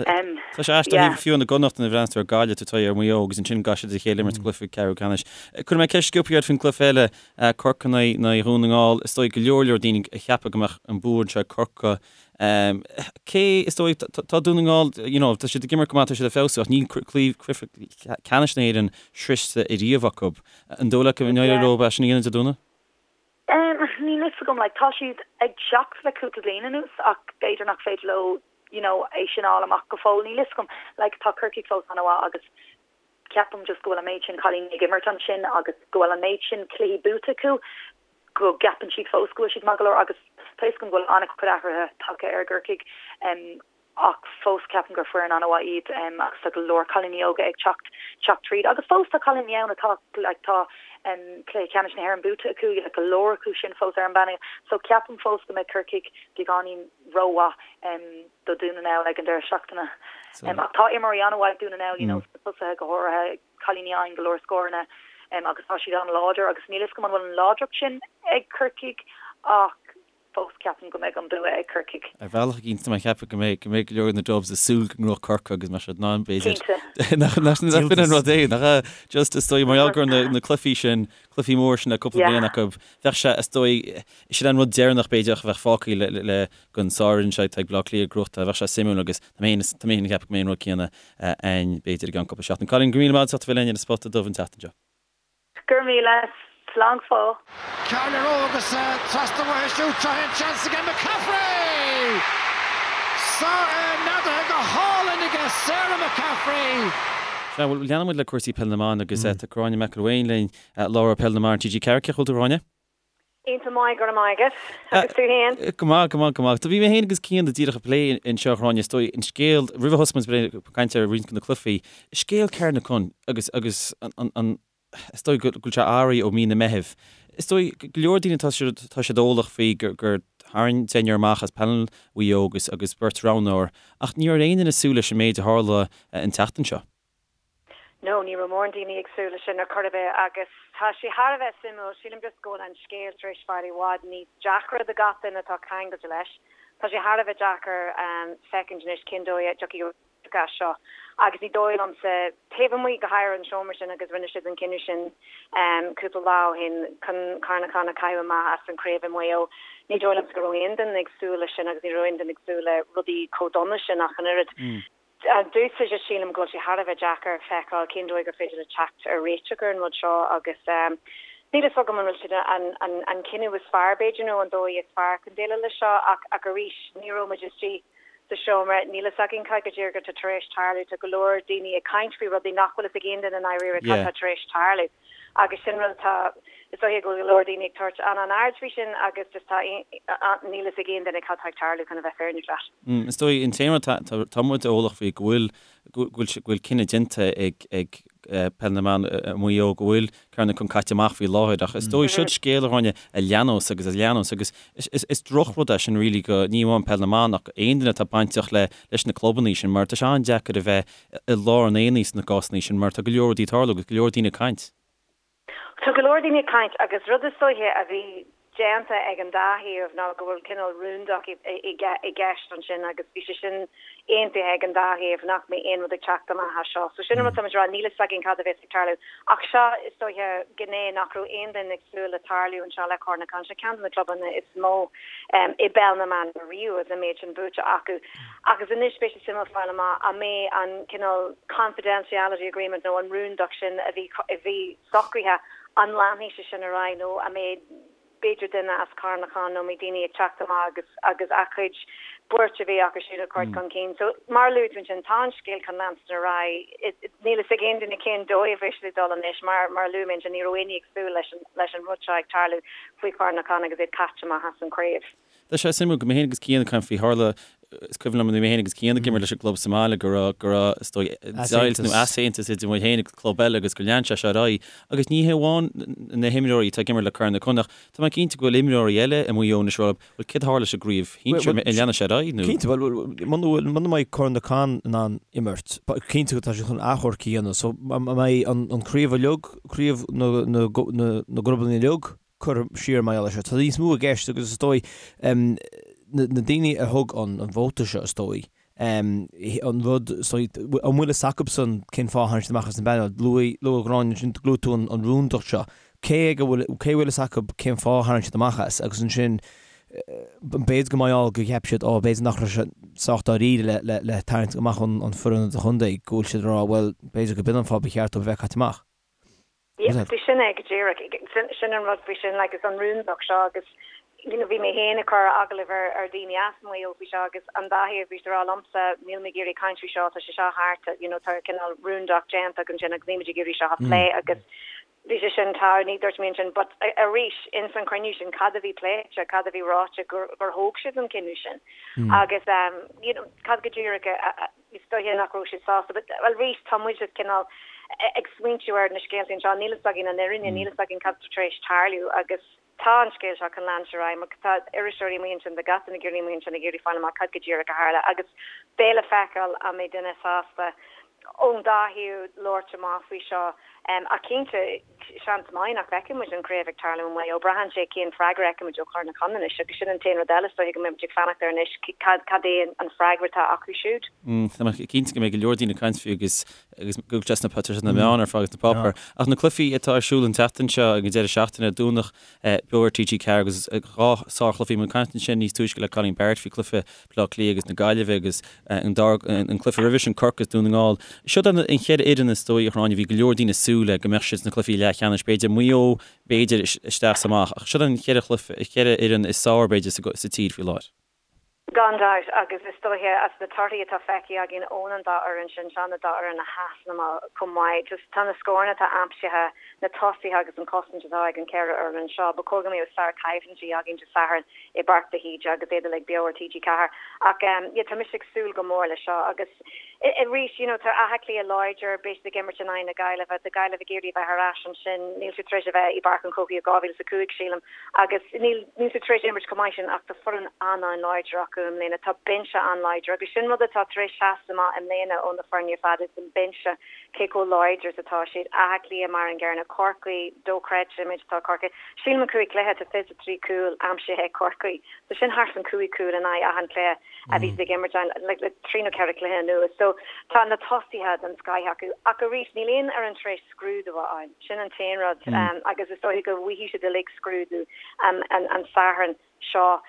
em Tá sé aisteach yeah. fiú na gConnacht nuair a bhreathnaíonn tú ar Gaillimh tú ar Mhaigh Eo agus ansin gcaithfidh siad a chéile imirt cluiche ceathrú ceannais. Cuirfidh mé ceist sciobtha ort faoin gcluiche eile Corcaigh in aghaidh Dhún na nGall. Is dóigh go leor leor daoine a cheapadh go mbeadh an bua anseo ag Corcaigh. Cé is dóigh tá Dún na nGall you know tá siad ag imirt go maith tá siad ag feabhsú ach níl cluiche ceannais na hÉireann sroichte ariamh acu. An dóigh leat go n-éireoidh leo é sin a dhéanamh Dé Domhnaigh? Em, níl fhios agam, like, tá siad ag teacht le cúpla bliain anuas ach b'fhéidir nach féidir leo, you know, é sin a fháil amach go fóill, níl fhios agam. Like, tá Corcaigh fós an-mhaith agus ceapaim just go bhfuil an méid sin cailíní ag imirt ansin agus go bhfuil an méid sin cluichí buaite acu go gceapann siad fós go bhfuil siad maith go leor agus tá fhios agam go bhfuil an-chuid athruithe tagtha ar gCorcaigh. Em, ach fós ceapaim gur foireann an-mhaith iad agus tá go leor cailíní óga ag teacht teacht tríd agus fós tá cailíní ann atá like tá cluiche ceannais na hÉireann buaite acu like go leor acu sin fós ar an bpainéal so ceapaim fós go mbeidh Corcaigh beagáinín rómhaith do Dún na nGall ag an deireadh seachtaine. Ach tá imreoirí an-mhaith ag Dún na nGall you know sna tosaithe go háirithe cailíní a fhaigheann go leor scóranna agus tá siad an-láidir agus níl fhios agam an bhfuil an láidreacht sin ag Corcaigh ach fós ceapaim go mbeidh an bua ag Corcaigh. Ar bhealach éigin tá mé ag ceapadh go mbeidh go mbeidh go leor de na Dubs ag súil go ngnóthódh Corcaigh agus mbeidh siad in ann b'fhéidir Cinnte. Nach nach b'in an rud é nach ea? Just is dóigh mar gheall go raibh na na cluichí sin cluichí mór sin le cúpla Yeah. bliain acu bheadh sé is dóigh sin an rud deireanach b'fhéidir a bheadh fágtha le le le don sárfhoireann seo atá ag Baile Átha Cliath gnóthachtáil bheadh sé suimiúil agus tá mé féin tá mé féin ag ceapadh go mbeidh an rud céanna ann b'fhéidir i gceann cúpla seachtain. Cailín go raibh míle maith agat as ucht a bheith linn ar an Spota Dubh an tseachtain seo. Go raibh míle. Slán go fóill. Ceann ar agus trasna uaithi siúd. Seo é an seans aige McCaffrey! Neadaithe go hálainn aige Sarah McCaffrey! Sea, bhuel, leanfaidh muid le cúrsaí Peil na mBan agus tá Gráinne McElwain linn, láithreoir Peil na mBan TG4. Cén chaoi a bhfuil tú, a Ghráinne? Iontach maith, go raibh maith agat. Agus tú fhéin? Go maith, go maith, go maith. Do bhí mé fhéin agus Cian díreach ag plé anseo, a Ghráinne, is dóigh, an scéal, roimh a thosaigh muid ag caint ar roinnt de na cluichí, scéal Carnacon agus, agus an, an, is dóigh go bhfuil sé athraithe ó mí na Meithimh. Is dóigh go leor daoine tá siad, tá siad eolach faoi gur, gur tharraing deichniúr amach as painéal Mhaigh Eo agus, agus beirt roghnóir, ach ní raibh aon duine ag súil leis an méid a tharla an tseachtain seo. No, ní raibh mórán daoine ag súil leis sin ar chor ar bith agus tá sé thar a bheith suimiúil. Sílim just go bhfuil an scéal tar éis fáil i bhfad níos deacra do gach duine atá ceangailte leis. Tá sé thar a bheith deacair feicint anois cén dóigh a dtiocfaidh réiteach as seo agus ní dóigh liomsa, taobh amuigh go háirithe an seomra sin agus rinne siad an cinneadh sin cúpla lá ó shin chun Carnacon a chaitheamh amach as an chraobh i Maigh Eo, ní dóigh liomsa go raibh aon duine ag súil leis sin agus ní raibh aon duine ag súil le rudaí chomh dona sin ach an oiread. Domhsa just sílim go bhfuil sé thar a bheith deacair feiceáil cén dóigh gur féidir le teacht ar réiteach ar an rud seo agus níl fhios agam an bhfuil siad an an cinneadh is fearr b'fhéidir nó an dóigh is fearr chun déileáil leis seo ach ach arís ní raibh muid istigh sa seomra, níl fhios againn cad go díreach atá tar éis tarlú, tá go leor daoine ag caint faoi rudaí nach bhfuil fhios ag aon duine i ndáiríre cad tá tar éis tarlú agus sin rud atá. Is dóiche go bhfuil go leor daoine ag tabhairt an-an-aird faoi sin agus just tá, níl fhios ag aon duine cad tá ag tarlú chun a bheith fírinneach leat. Is dóigh an t-aon rud tá muid eolach faoi go bhfuil go bhfuil cinneadh déanta ag ag Peil na mBan i Maigh Eo go bhfuil Corn na Con caite amach faoi láthair ach is dóigh siod scéal a Ghráinne a leanós agus a leanós agus is drochrud é sin really go ní amháin Peil na mBan ach aon duine atá bainteach le leis na clubanna sin mar tá sé an-deacair a bheith i lár an aonaigh sna cásanna sin mar tá go leor rudaí ag tarlú agus go leor daoine ag caint. Tá go leor daoine ag caint agus rud is dóiche a bhí déanta ag an dá thaobh ná go bhfuil cineál rúndacht i gceist ansin agus bhí sé sin aontaithe ag an dá thaobh nach mbeidh aon rud ag teacht amach as seo. So sin an rud táimid ag rá, níl fhios againn cad a bheas ag tarlú. Ach seo, is dóiche, gné nach raibh aon duine ag súil le tarlú anseo le Corn na Con. Seo ceann de na clubanna is mó i bpeil na mban riamh agus an méid sin buaite acu. Agus anois beidh sé suimiúil fáil amach an mbeidh an cineál confidentiality agreement nó an rúndacht sin a bhí a bhí socraithe, an leanfaidh sé sin ar aghaidh nó an mbeidh b'fhéidir duine as Carn na Con nó an mbeidh daoine ag teacht amach agus agus a gcuid buairt a bhí acu siúd a chur chun cinn. So mar a luaigh tú ansin tá an scéal chun leanstan ar aghaidh. Níl fhios ag aon duine cén dóigh a bheidh sé ag dul anois mar mar a luaigh mé ansin ní raibh éinne ag súil leis an leis an rud seo ag tarlú faoi Chorn na Con agus iad caite amach as an chraobh. Tá sé suimiúil go mé féin agus Cian ag caint faoi tharla, is cuimhin liom nuair a bhí mé féin agus Cian ag imirt leis an gclub sa mbaile go raibh, go raibh, is dóigh, deighilt nó easaontas idir muid féin agus club eile agus gur lean sé seo ar aghaidh. Agus ní hé amháin na himreoirí atá ag imirt le Corn na Con ach tá mé cinnte go bhfuil imreoirí eile i Maigh Eo anois ag rá, bhuel céard a tharla leis an gcraobh shinsir, an leanfaidh sé ar aghaidh nó? Cinnte, bhuel, muna bhfuil, muna mbeidh Corn na Con in ann imirt, cinnte go tá siad chun achomharc a dhéanamh so an mbeidh an craobh uilig, craobh na, na, na, na gclubanna uilig, curtha siar mar gheall air seo. Tá níos mó i gceist agus is dóigh na daoine a thug an vóta seo is dóigh an rud is dóigh an bhfuil fhios acubsan cén fáth a tháinig siad amach as an bpainéal. Luaigh luaigh Gráinne ansin luaigh tú an rúndacht seo. Cé ag a bhfuil cé a bhfuil fhios acu cén fáth a tharraing siad amach as agus ansin b'fhéidir go mbeidh go cheap siad ó b'fhéidir nach raibh sé sách dáiríre le le le tarraingt amach an an foireann idirchontae go bhfuil siad ag rá bhuel b'fhéidir go b'in an fáth ba cheart dóibh a bheith caite amach. Yeah, sin é go díreach. Sin an rud faoi sin, like, is an rúndacht seo agus, you know, bhí mé féin ag cur agallamh ar, ar daoine as Maigh Eo faoi seo agus an dá thaobh bhí siad ag rá liomsa, níl mé ag iarraidh caint faoi seo, tá sé seo thart, you know, tá cineál rúndacht déanta againn sin agus níl muid ag iarraidh seo a phlé agus bhí sé sin tá, ní dúirt mé ansin, but arís, ins an chruinniú sin, cad a bhí pléite, cad a bhí ráite gur, gur thóg siad an cinneadh sin agus, you know, cad go díreach a, a, Is dóiche nach raibh siad sásta. But, well, arís, tá muid just cineál ag smaointiú ar na scéalta anseo. Níl fhios againn an fhírinne, níl fhios againn cad tá tar éis tarlú agus tá an scéal seo chun leanstan ar aghaidh mar tá iriseoirí amuigh ansin, tá gach duine ag iarraidh amuigh ansin ag iarraidh fáil amach cad go díreach a tharla agus beidh le feiceáil an mbeidh duine sásta ón dá thaobh labhairt amach faoi seo. Ach cinnte, seans maith nach bhfeicfidh muid an chraobh ag tarlú i Maigh Eo. Braitheann sé cén freagra a fheicfimid ó Chor na Con anois agus sin an t-aon rud eile is dóiche go mbeidh muid ag fanacht air anois, cad cad é an freagra atá acu siúd. Tá mé cinnte go mbeidh go leor daoine ag caint faoi agus agus go bhfuil sé sna tá sé sna meáin ar fad agus sna páipéir. Ach na cluichí atá ar siúl an tseachtain seo ag an deireadh seachtaine, Domhnach beo ar TG4 agus dhá sárchluiche. Bhí muid ag caint ansin níos túisce le Colleen Barrett faoi chluiche Bleá Cliath agus na Gaillimhe agus an dara an cluiche roimhe sin Corcaigh is Dún na nGall. Siod an cheithre fhoireann is dóigh a Ghráinne bhí go leor daoine ag súil le go mbeadh siad sna cluichí leathcheannais, b'fhéidir Maigh Eo b'fhéidir isteach is amach ach siod an cheithre chluiche cheithre fhoireann is fearr b'fhéidir sa tír faoi láthair. Gan dabht, agus is dóiche as na torthaí atá feicthe againn ón an dá fhoireann sin, seo na dá fhoireann a sheasann amach chomh maith. Just tá na scóranna atá aimsithe, na tosaithe agus an chosaint atá ag an cheithre fhoireann seo, ba chóir go mbeadh sár-choimhlintí againn Dé Sathairn. i bPáirc de hÍde agus iad uilig beo ar TG4. Ach yeah, tá mise ag súil go mór leis seo agus arís, you know, tá Áth Cliath láidir, beidh siad ag imirt in aghaidh na Gaillimhe, tá Gaillimh ag iarraidh a bheith ar ais ansin, níl siad tar éis a bheith i bPáirc an Chrócaigh ó 2005, sílim, agus níl, níl siad tar éis imirt chomh maith sin ach tá foireann an-an-láidir acu i mbliana, tá binse an-láidir agus sin rud atá tar éis seasamh amach i mbliana ó na foirne ar fad, is an binse. cé chomh láidir is atá siad. Áth Cliath mar an gcéanna, Corcaigh, dochreidte an méid atá Corcaigh. Sílim an 5 cluiche, tá 23 cúl aimsithe ag Corcaigh. So sin thart an 5 cúl in aghaidh achan cluiche a bhí siad ag imirt ann like, le trí nó ceithre cluiche anuas. So tá na tosaithe den scoith acu. Ach arís, níl aon fhoireann tar éis scrúdú a fháil. Sin an t-aon rud. Agus is dóiche go bhfaighidh siad uilig scrúdú an, an Satharn. seo.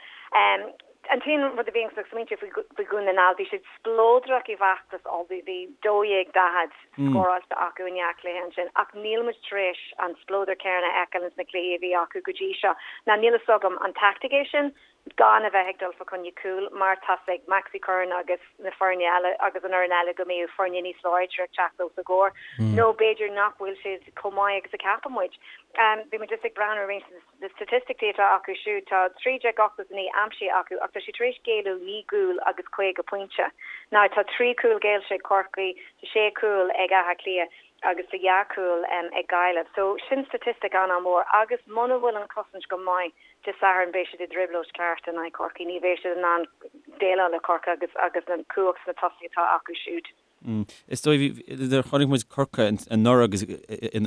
An t-aon rud a bhíonn ag smaointiú faoi Dhún na nGall, bhí siad spleodrach i bhfeachtas Uladh, bhí 12-40 scóráilte acu i ndhá chluiche ansin, ach níl muid tar éis an spleodar céanna a fheiceáil ins na cluichí a bhí acu go dtí seo. Now níl fhios agam an taictic é sin gan a bheith ag dul fa choinne cúil mar tá's ag Maxi Curran agus na foirne eile agus an fhoireann eile go mbeidh foirne níos láidre ag teacht os a gcomhair nó b'fhéidir nach bhfuil siad chomh maith agus a ceapann muid. Bhí muid just ag breathnú ar roinnt de na staitisticí atá acu siúd, tá 1,389 aimsithe acu ach tá siad tar éis géilleadh 9 gcúl agus 50 pointe. Now tá 3 chúl géillte ag Corcaigh, tá 6 chúl ag Áth Cliath agus tá 2 chúl ag Gaillimh. So sin staitistic an-an-mhór agus muna bhfuil an chosaint go maith Dé Sathairn beidh siad i dtrioblóid ceart in aghaidh Chorcaí. Ní bheidh siad in ann déileáil le Corcaigh agus agus an cumhacht sna tosaithe atá acu siúd. Is dóigh, nuair a chonaic muid Corcaigh anuraidh agus i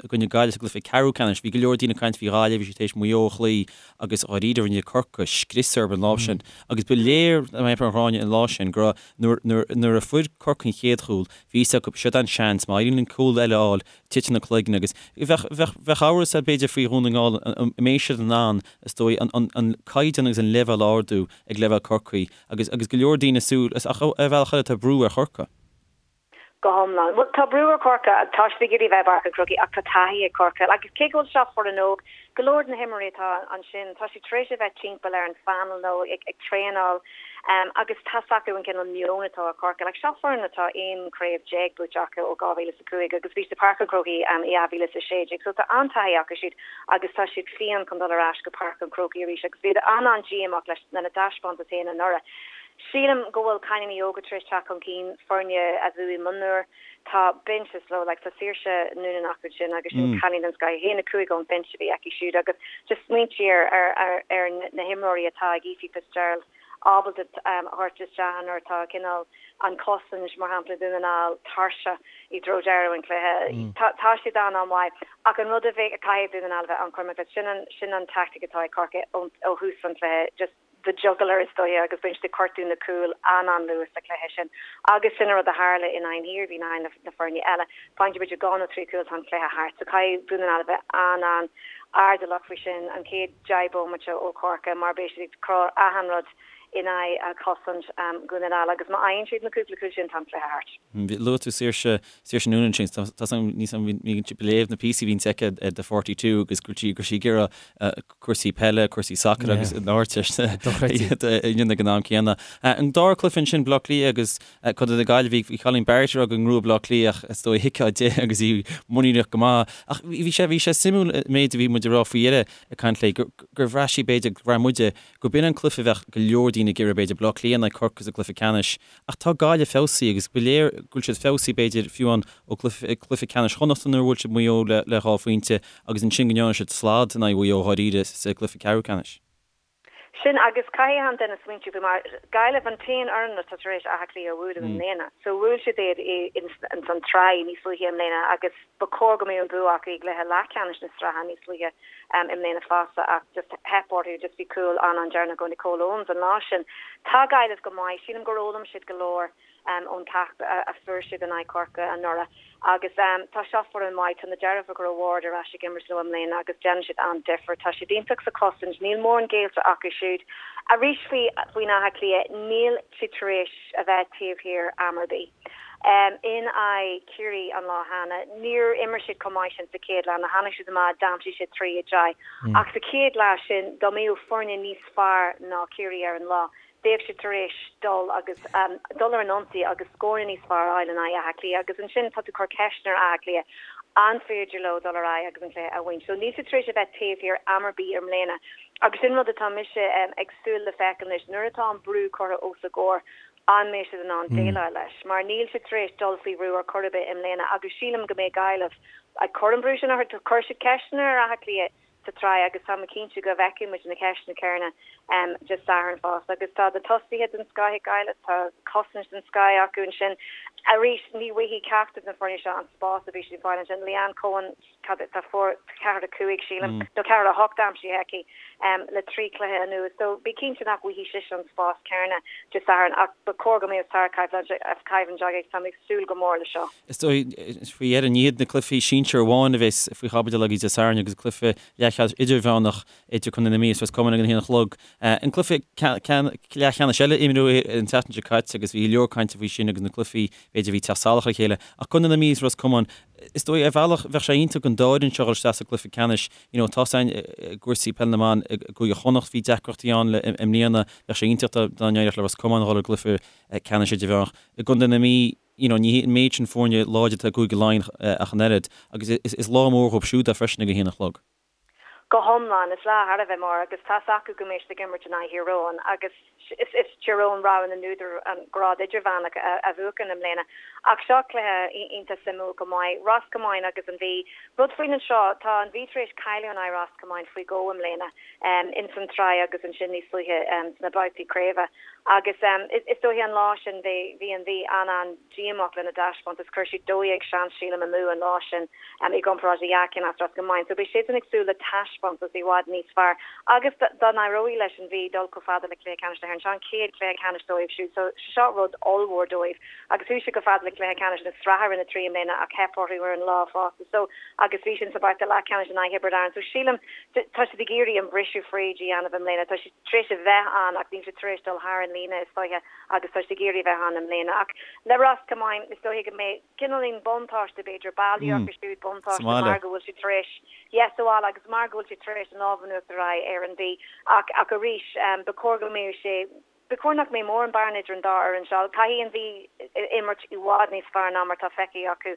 gcoinne Gaillimh sa gcluiche ceathrú ceannais, bhí go leor daoine ag caint faoi Ghaillimh, bhí siad tar éis Maigh Eo a chloí agus dháiríre rinne Corcaigh scrios orthu an lá sin. Agus ba léir mar a Ghráinne an lá sin go raibh nuair nuair a fuair Corcaigh an chéad chúl, bhí fhios acu, siod an seans, má éiríonn linn cúl eile a fháil, titeann na cloigne agus bheadh, bheadh, bheadh amhras air b'fhéidir faoi Dhún na nGall an mbeidh siad in ann, is dóigh, an, an, an caighdeán agus an leibhéal a ardú ag leibhéal Chorcaí agus, agus go leor daoine ag súil, ach ar bhealach eile tá brú ar Chorcaigh. Go hiomlán. Bhuel, tá brú ar Chorcaigh, tá siad ag iarraidh a bheith i bPáirc an Chrócaigh ach tá taithí ag Corcaigh agus cé go bhfuil seo foireann óg, go leor de na himreoirí atá ansin, tá siad tar éis a bheith timpeall ar an phainéal nó ag, ag traenáil agus tá's acu an cineál meon atá ag Corcaigh. Like, seo foireann atá 11 craobh buaite acu ó 2005 agus bhí siad i Páirc an Chrócaigh i 2016 so tá an-taithí acu siúd agus tá siad fiáin chun dul ar ais go Páirc an Chrócaigh arís agus bhí an-an-díomách leis lena dtaispeántas féin anuraidh. Sílim go bhfuil cailíní óga tar éis teacht chun cinn, foirne a bhuaigh mionúir, tá binse slow like tá Saoirse Noonan acu sin agus sin cailín den scoth, 1-5 ón bhinse a bhí aici siúd agus just smaointigh ar ar ar ar na himreoirí atá ag Ephie Fitzgerald ábalta a thabhairt isteach nuair atá cineál an chosaint, mar shampla, Dún na nGall tuirseach i dtreo deireadh an chluiche. Tá siad an-an-mhaith ach an rud a bheidh, caithfidh Dún na nGall a bheith an-chúramach leis, sin an, sin an tactic atá ag Corcaigh ó thús an chluiche, just the jugular is dóiche agus bíonn siad ag gortú na cúil an-an-luath sa chluiche sin agus sin an rud a tharla in aghaidh an Iarmhí, in aghaidh na foirne eile. Faigheann siad b'fhéidir dhá nó trí chúl tá an cluiche thart. So caithfidh Dún na nGall a bheith an-an-airdeallach faoi sin an chéad 10 bomaite ó Chorcaigh mar beidh siad ag cur achan rud in aghaidh chosaint Dhún na nGall agus má fhaigheann siad na cúpla cúl sin tá an cluiche thart. Luaigh tú Saoirse, Saoirse Noonan ansin, tá tá níos bhí ag léamh na píosaí a bhíonns aici ar The 42 agus go raibh sí go raibh sí ag iarraidh cúrsaí peile, cúrsaí sacair agus an Ardteist a dhéanamh ag an am céanna. An dara cluiche ansin, Baile Átha Cliath agus Contae na Gaillimhe, bhí Colleen Barrett ag rá go ngnóthódh Baile Átha Cliath ach is dóigh thuigfeá di agus í muiníneach go maith. Ach bhí sé bhí sé suimiúil an méid a bhí muid ag rá faoi dheireadh ag caint léi gur gur bhraith sí b'fhéidir, gur bhraith muide gur b'in an cluiche a bheadh go leor daoine ag iarraidh b'fhéidir, Baile Átha Cliath in aghaidh Corcaigh sa gcluiche ceannais. Ach tá Gaillimh feabhsaithe agus ba léir go bhfuil siad feabhsaithe b'fhéidir fiú amháin ó chluiche ceannais Chonnacht nuair a bhuail siad Maigh Eo le dhá phointe agus ansin go ndearna siad slad in aghaidh Mhaigh Eo dháiríre sa gcluiche ceathrú ceannais. Sin agus caithfidh achan duine smaointiú faoi mar Gaillimh an t-aon fhoireann atá tar éis Áth Cliath a bhualadh i mbliana. So bhuail siad iad ins an tsraith níos luaithe i mbliana agus ba chóir go mbeadh an bua acu i gcluiche leathcheannais na sraithe níos luaithe i mbliana fosta ach just theip orthu, just bhí cúl an-an-deireanach ó Nicole Owens an lá sin. Tá Gaillimh go maith, sílim gur fhoghlaim siad go leor ón gceacht a fuair siad in aghaidh Chorcaí anuraidh agus tá seo foireann mhaith, tá na deirfiúracha Ward ar ais ag imirt leo i mbliana agus déanann siad an-difear, tá siad iontach sa chosaint, níl mórán géillte acu siúd. Arís faoi faoin Áth Cliath, níl siad tar éis a bheith taobh thiar am ar bith. In aghaidh Chiarraí an lá cheana, níor imir siad chomh maith sin sa chéad leath, tháinig siad amach, d'aimsigh siad 3-10. Ach sa chéad leath sin, dá mbeadh foirne níos fearr ná Ciarraí ar an lá, bheadh siad tar éis dul agus dul ar an ionsaí agus scóranna níos fearr a fháil in aghaidh Átha Cliath agus ansin tá tú ag cur ceisteanna ar Áth Cliath an féidir leo dul ar aghaidh agus an cluiche a bhaint. So níl siad tar éis a bheith taobh thiar am ar bith i mbliana agus sin rud atá mise ag súil le feiceáil anois nuair atá an brú curtha os a gcomhair an mbeidh siad in ann déileáil leis mar níl siad tar éis dul faoi bhrú ar chor ar bith i mbliana agus sílim go mbeidh Gaillimh ag cur an brú sin orthu. Chuir siad ceisteanna ar Áth Cliath sa tsraith agus tá mé cinnte go bhfeicfidh muid na ceisteanna céanna Dé Sathairn fosta. Agus tá na tosaithe den scoth ag Gaillimh, tá cosaint den scoth acu ansin. Arís, ní bhfaighidh ceachtar de na foirne seo an spás a bhí siad ag fáil ansin. Leanne Coen, cad é, tá fuair 4, 5 sílim, nó 4, 8 aimsithe aici le 3 chluiche anuas. So bí cinnte nach bhfaighidh sise an spás céanna Dé Sathairn ach ba chóir go mbeadh sárchoimhlint againn. Tá mé ag súil go mór le seo. Is dóigh, faoi dheireadh, ní hiad na cluichí sinsir amháin a bheas faoi chaibidil agaibh Dé Sathairn agus cluiche leathcheannais idirmheánach idir Contae na Mí agus Ros Comáin ag an haon a chlog. An cluiche leathcheannais eile imríodh an tseachtain seo caite agus bhí go leor cainte faoi sin agus na cluichí b'fhéidir a bhí ag teacht salach ar a chéile. Ach Contae na Mí is Ros Comáin, is dóigh ar bhealach bheadh sé iontach don dá fhoireann seo dhul isteach sa gcluiche ceannais. You know, tá san i gcúrsaí peile na mban i gCúige Chonnacht bhí deacrachtaí ann le i mbliana, bheadh sé iontach dá n-éireodh le Ros Comáin dhul i gcluiche ceannais idirmheánach. I gContae na Mí, you know, ní hé an méid sin foirne láidir atá i gCúige Laighean ach an oiread agus is lá mór dhóibh siúd é freisin ag a haon a chlog. Go hiomlán, is lá thar a bheith mór agus tá's acu go mbeidh siad ag imirt in aghaidh Thír Eoghain agus is is Tír Eoghain rogha na n-údar an grád idirmheánach a bhuachan i mbliana. Ach seo cluiche iontach suimiúil go maith. Ros Comáin agus an Mhí. Rud faoin anseo, tá an Mhí tar éis cailleadh in aghaidh Ros Comáin faoi dhó i mbliana, ins an tsraith agus ansin níos luaithe sna babhtaí craoibhe. Agus is dóiche an lá sin bhí an Mhí an-an. díomách lena dtaispeántas. Chuir siad 12 seans, sílim, amú an lá sin i gcomparáid le dhá cheann as Ros Comáin. So beidh siadsan ag súil le taispeántas i bhfad níos fearr. Agus dá n-éireoidh leis an Mhí dul chomh fada le cluiche ceannais na hÉireann, seo an chéad chluiche ceannais dóibh siúd. So seo rud ollmhór dóibh. Agus chuaigh siad chomh fada le cluiche ceannais na sraithe Roinn 3 i mbliana ach theip orthu ar an lá fosta. So agus bhí sin sa babhta leathcheannais in aghaidh Thiobraid Árann. So sílim tá siad ag iarraidh an briseadh fríd a dhéanamh i mbliana. Tá siad tar éis a bheith ann ach níl siad tar éis dul thar an líne is dóiche. agus tá siad ag iarraidh a bheith ann i mbliana. Ach le Ros Comáin, is dóiche go mbeidh cineáilín buntáiste, b'fhéidir, baile acu siúd, buntáiste mar go bhfuil siad tar éis, yes, sa bhaile agus mar go bhfuil siad tar éis an lámh in uachtar a fháil ar an Mhí. Ach, ach arís, ba chóir go mbeadh sé, ba chóir nach mbeadh mórán bearna idir an dá fhoireann seo. Caithfidh an Mhí imirt i bhfad níos fearr ná mar atá feicthe acu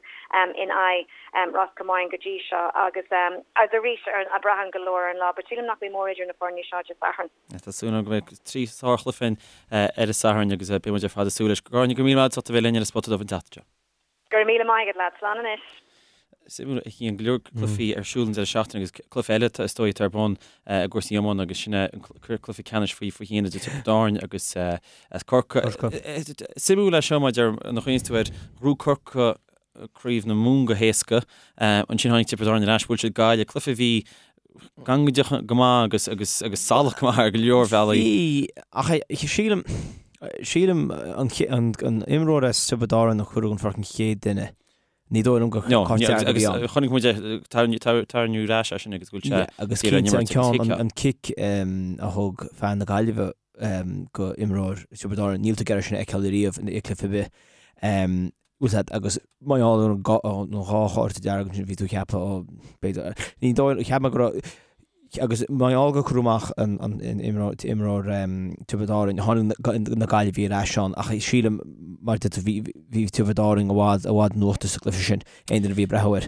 in aghaidh Ros Comáin go dtí seo agus, agus arís, braitheann go leor ar an lá, but sílim nach mbeidh mórán idir na foirne seo Dé Sathairn. Tá súil agam go mbeidh trí sárchluiche againn ar an Satharn agus beidh muid ar fad ag súil leis. Gráinne, go raibh míle maith agat as ucht a bheith linn ar an Spota Dubh an tseachtain seo. Go raibh míle maith agat, lads. Slán anois. Suimiúil a Chian, go leor cluichí ar siúl an deireadh seachtaine agus cluiche eile is dóigh atá ar bun i gcúrsaí iomána agus sin é an cluiche ceannais faoi 21 idir Tiobraid Árann agus Corcaigh. Suimiúil é seo maidir nuair a chuimhníonns tú air, ghnóthaigh Corcaigh Craobh na Mumhan go héasca. Ansin tháinig Tiobraid Árann ar ais, bhuail siad Gaillimh, cluiche a bhí gangaideach go maith agus agus agus salach go maith ar go leor bealaí. Bhí, ach sílim, sílim an an an imreoir as Tiobraid Árann a cuireadh den pháirc an chéad duine. Ní dóigh liom gur No, cárta dearg a bhí ann. agus chonaic muid é tarraingt ar ais é sin agus go bhfuil sé Agus cinnte an ceann, an cic a thug fear na Gaillimhe go imreoir Tiobraid Árann, níl tú ag iarraidh sin a fheiceáil ariamh i gcluiche ar bith. Bhfuil a fhios agat, agus mar gheall ar an dhá chárta dearg ansin bhí tú ag ceapadh, ó, b'fhéidir, ní dóigh, cheap mé go raibh, agus mar gheall gur cuireadh amach an imreoir Tiobraid Árann, tháinig na Gaillimhigh ar ais ann, ach sílim, mar a deir tú, bhí, bhí Tiobraid Árann i bhfad, i bhfad in uachtar sa gcluiche sin, aon duine a bhí ag breathnú air.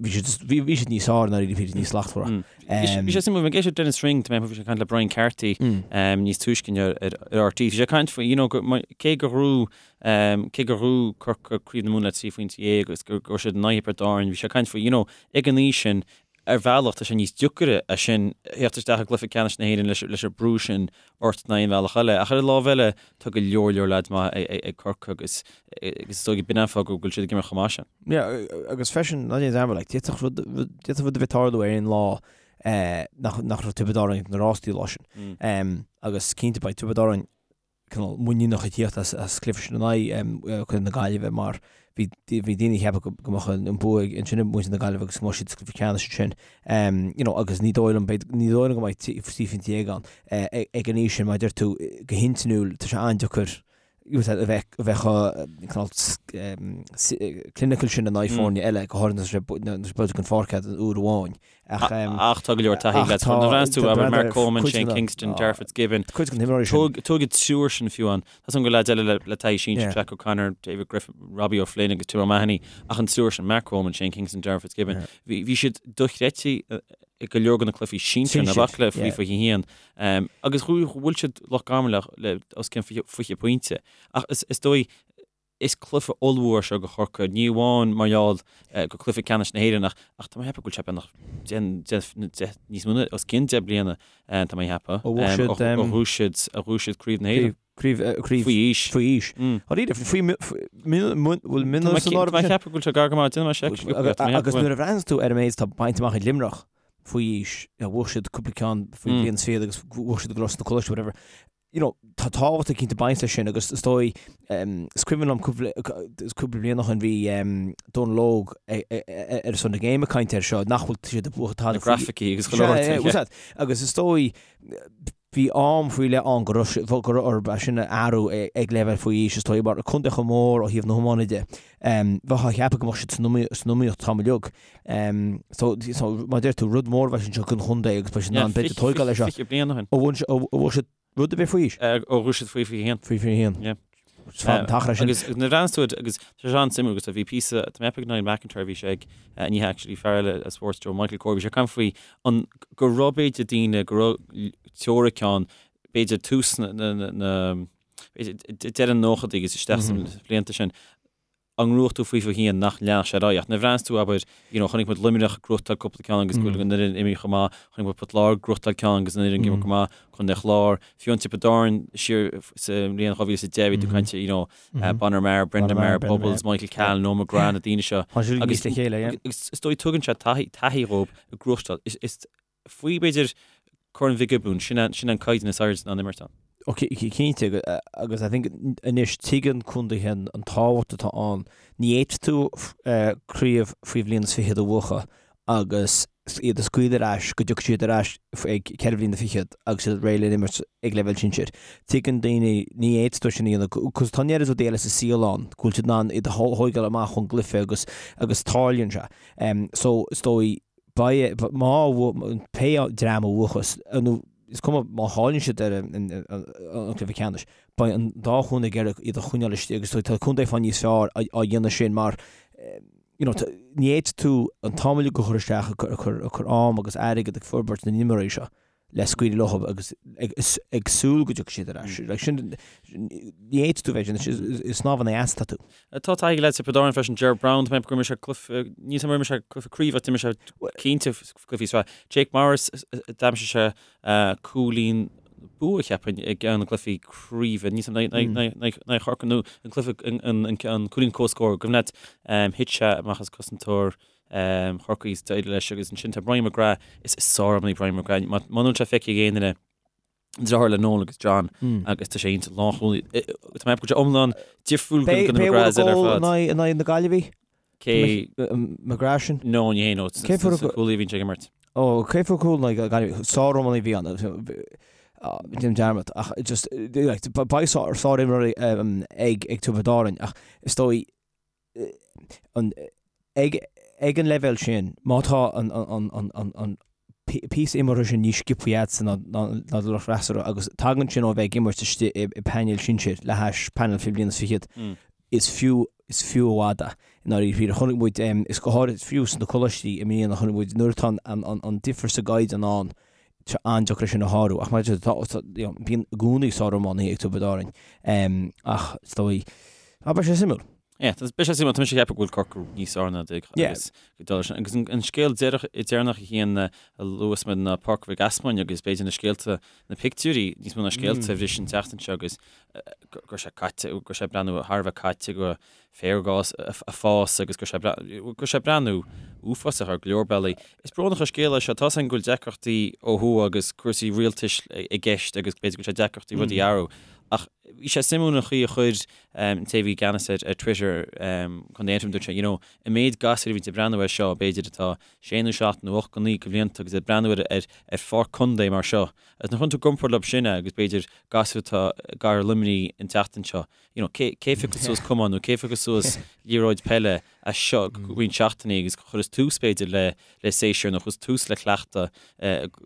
Bhí siad, bhí, bhí siad níos fearr i ndáiríre, bhí siad níos slachtmhaire. Bhí sé suimiúil, bhí mé ag éisteacht le Denis Ring, bhí sé ag caint le Brian Carthy níos túisce inniu ar RTÉ, bhí sé ag caint faoi, you know, cé gur ghnóthaigh Cé gur ghnóthaigh Corcaigh Craobh na Mumhan le 13 phointe agus go raibh siad in aghaidh Thiobraid Árann, bhí sé ag caint faoi, you know, ag an aois sin, ar bhealach tá sé níos deacaire é sin, theacht isteach i gcluiche ceannais na hÉireann leis leis an brú sin ort ná aon bhealach eile. Ach ar an lámh eile, tá go leor leor leaids maith ag Corcaigh agus agus is dóigh b'in an fáth go bhfuil siad ag imirt chomh maith sin. Yeah, agus freisin, ná déan dearmad, like, d'fhéadfadh rud, d'fhéadfadh rud a bheith ag tarlú ar aon lá nach, nach raibh Tiobraid Árann ag na rástaí lá sin. Agus cinnte beidh Tiobraid Árann cineál muiníneach ag tíocht as cluiche sin in aghaidh Contae na Gaillimhe mar bhí bhí daoine ag ceapadh go mbeadh an bua ansin ag muintir na Gaillimhe agus go mbeadh siad sa gcluiche ceannais ansin. You know, agus ní dóigh liom, ní dóigh liom go mbeidh 13 phointe ann ag an aois sin mar a deir tú go hintinniúil tá sé an-deacair a bheith a bheith chomh cineál clinical sin in aghaidh foirne eile go háirithe nuair atá sé buailte den pháirc agat uair amháin. Ach tá go leor taithí agat. Nuair a bhreathnaíonns tú abair Mark Coleman, Shane Kingston, Darragh Fitzgibbon. Cuid den imreoirí sin. Tóg an triúr sin fiú ann. Tá san go leaids eile le taithí sinsir, Jack O'Connor, David Griffin, Robbie O'Flynn agus Tim O'Mahony. Ach an triúr sin, Mark Coleman, Shane Kingston, Darragh Fitzgibbon, bhí siad dochreidte i go leor de na cluichí sinsir na baicle faoi 21. Agus bhuail siad Loch Garman le os cionn 20 pointe. Ach is dóigh Is cluiche ollmhór é seo do Chorcaigh, ní amháin mar gheall gur cluiche ceannais na hÉireann ach ach tá mé ag ceapadh go bhfuil sé beagnach deich, níos mó ná os cionn 10 bliana tá mé ag ceapadh, Ó bhuaigh siad, ó ghnóthaigh siad, ó ghnóthaigh siad Craobh na hÉireann. Craobh, craobh, Faoi aois. Faoi aois. Dáiríre, faoi, bhfuil mionúir san áireamh Tá mé ag ceapadh go bhfuil sé gar go maith, déanfaidh mé seic. Agus nuair a bhreathnaíonns tú ar an méid atá bainte amach ag Luimneach faoi aois, bhuaigh siad cúpla ceann faoi bhliain is fichead agus bhuaigh siad go leor sna coláistí, whatever. you know, tá tábhacht eicínt ag baint leis sin agus is dóigh, is cuimhin liom cúpla, cúpla bliain ó shin bhí Dónal Óg ar son na Game ag caint air seo, nach bhfuil siad ag buachan tada. Na grafaicí agus chuile shórt. Sea, agus is dóigh, Bhí am faoi leith ann go raibh sé, go raibh orthu é sin a athrú ag leibhéal faoi aois, is dóigh, mar contae chomh mór ó thaobh na hiomána de, bheifeá ag ceapadh go mbeadh siad san iomaíocht an t-am uilig. So, so, mar a deir tú, rud mór a bheas anseo don chontae agus beidh siad in ann b'fhéidir tóigeáil leis seo. 20 bliain ó shin. Ó bhuaigh siad rud ar bith faoi aois? Ó bhuaigh siad faoi 21. Faoi 21. Yeah. Is fada an t-achar é sin. Agus nuair a bhreathnaíos tú agus tá sé an-suimiúil agus bhí píosa, tá mé ag ceapadh Niall McIntyre bhí sé ag, ní hea actually, fear eile as Sports Joe, Michael Corr, bhí sé ag caint faoi an, go raibh b'fhéidir daoine, go raibh teoiric ann, b'fhéidir tús na, na, na, b'fhéidir deireadh na nóchaidí agus isteach sna blianta sin, á ngnóthú faoi 21 nach leanfadh sé ar aghaidh. Ach nuair a bhreathnaíos tú, abair, you know, chonaic muid Luimneach ag gnóthachtáil cúpla ceann agus go bhfuil an fhoireann imithe chomh maith, chonaic muid Port Láirge ag gnóthachtáil ceann agus an fhoireann ag imirt go maith, Contae an Chláir, fiú an Tiobraid Árann siar sa mbliain 2010 bhí tú ag caint, you know, Bonner Maher, Brendan Maher, Bubbles, Michael Cahalane, Noel McGrath, na daoine seo. Tá siad níos le chéile, yeah. Agus is dóigh tugann sé taithí, taithí dhóibh ag gnóthachtáil. Is, is faoi b'fhéidir Corn Mhic Giobúin, sin an, sin an caighdeán is airde in ann imirt ann. Ó cinnte, agus I think anois tuigeann contaetha an tábhacht atá ann. Ní fhéadfaidh tú craobh faoi bhliain is fichead a bhuachan agus iad a scaoileadh ar ais go dtiocfaidh siad ar ais ag ceithre bhliana fichead agus iad réidh le imirt ag leibhéal sinsir. Tuigeann daoine, ní fhéadfaidh tú sin a dhéanamh, cos tá an oiread rudaí eile sa saol ann go bhfuil siad in ann iad a thóigeáil amach ón gcluiche agus agus tarlaíonn sé. So is dóigh, beidh, má, pé dream a bhuachas, nó is cuma má chailleann siad ar an gcluiche ceannais, beidh an dá chontae ag iarraidh iad a choinneáil istigh agus tá contae fá níos fearr á dhéanamh sin mar you know, ní fhéadfaidh tú an t-am uilig a chur isteach ag cur am agus airgead ag forbairt na n-imreoirí seo le scaoileadh leo agus ag súil go dtiocfaidh siad ar ais. Like sin, ní fhéadfaidh tú bheith sin, is snámh in aghaidh easa atá tú. Tá taithí ag leaids Thiobraid Árann freisin, Ger Browne, tá mé ag ceapadh gur imir sé cluiche, níl a fhios agam ar imir sé cluiche craoibhe ach d'imir sé cinnte cluichí sraithe. Jake Morris, d'aimsigh sé cúilín bua, cheapfainn, i gceann de na gcluichí craoibhe, níl a fhios agam, in aghaidh Chorcaí nó an cluiche, an cúilín comhscóir, cuimhin leat, thit sé amach as cosantóir Chorcaí is d'éirigh leis agus ansin tá Brian McGrath, is sár-iománaí Brian McGrath, muna bhfuil sé feicthe ag aon duine, deartháir le Noel agus John agus tá sé iontach lánchúlaí. Tá mé ag ceapadh go bhfuil sé iomlán difriúil go na McGraths eile ar fad. In aghaidh na Gaillimhe? Cé? McGrath sin? No, ní hé no. Cé fuair sa cúlaí a bhíonn sé ag imirt. Ó, cé fuair cúl in aghaidh Gaillimhe? Sár-iománaí a bhí ann. Déanaim dearmad ach just beidh sár-imreoirí ag Tiobraid Árann ach is dóigh ag ag an leibhéal sin, má tá an an píosa imeartha sin níos sciobthaí agatsa ná ná do lucht freasúra agus tagann sin ó bheith ag imirt istigh i bpainéal sinsir le hais painéal faoi bhliain is fichead, is fiú is fiú i bhfad é i ndáiríre. Chonaic muid, is go háirid fiú sna coláistí i mbliana, chonaic muid nuair atá an an difear sa gcaighdeán ann, tá sé an-deacair é sin a shárú. Ach mar a deir tú, tá, you know, bíonn i gcónaí sár-iománaithe ag Tiobraid Árann. Ach is dóigh, ah, beidh sé suimiúil. Yeah, beidh sé suimiúil, tá mise ag ceapadh go bhfuil Corcaigh níos fearr ná Doire agus dul sin. Agus an scéal deireach, deireanach a Chian a luas muid ná Páirc Mhic Easmainn agus b'fhéidir na scéalta, na pictiúirí níos mó ná scéalta a bhris an tseachtain seo agus go raibh sé caite, go raibh sé ag breathnú thar a bheith caite go féar ag fás agus go raibh sé go raibh sé ag breathnú uafásach ar go leor bealaí. Is brónach an scéal é seo, tá's againn go bhfuil deacrachtaí ó thuaidh agus cúrsaí rialtais i gceist agus b'fhéidir go bhfuil sé deacrachtaí rudaí a athrú. Ach bhí sé suimiúil an chaoi a chuir an té a bhí i gceannas ar Twitter, Contae Aontroim, dúirt sé, you know, an méid gasúir a bhíonn ag breathnú air seo, b'fhéidir atá sé nó seacht nó ocht nó naoi de bhlianta agus ag breathnú ar ar ar pháirc contae mar seo. Agus nuair a chuireann tú i gcomparáid leo sin é agus b'fhéidir gasúir atá i gcathair Luimnigh an tseachtain seo, you know, cé cé phiocfas suas camán nó cé phiocfas suas liathróid peile as seo go roinnt seachtainí agus chuireas tús b'fhéidir le le séasúr nó chuireas tús le cleachtadh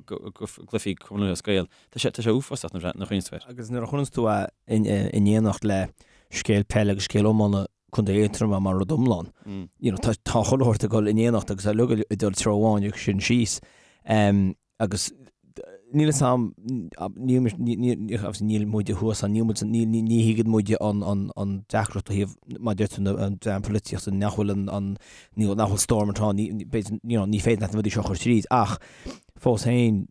go gcluichí Cumann Lúthchleas Gael. Tá sé, tá sé uafásach nuair a chuimhníonns tú air. Agus nuair a chuireanns tú é in éineacht le scéal peile agus scéal iomána Contae Aontroma mar rud iomlán, you know, tá, tá chuile shórt ag dul in éineacht agus tá uilig ag dul treo amháin agus sin síos. Agus níl a fhios agam, níl, níl, obviously níl muide thuas ann, níl muid, ní, ní, ní thuigeann muide an, an, an deacracht ó thaobh, mar a deir tú, na, an dream polaitíochta, nach bhfuil an, an, ní, nach bhfuil Stormont ann, ní, b'fhéidir, you know, ní féidir leat na rudaí seo a chur tríd, ach fós féin,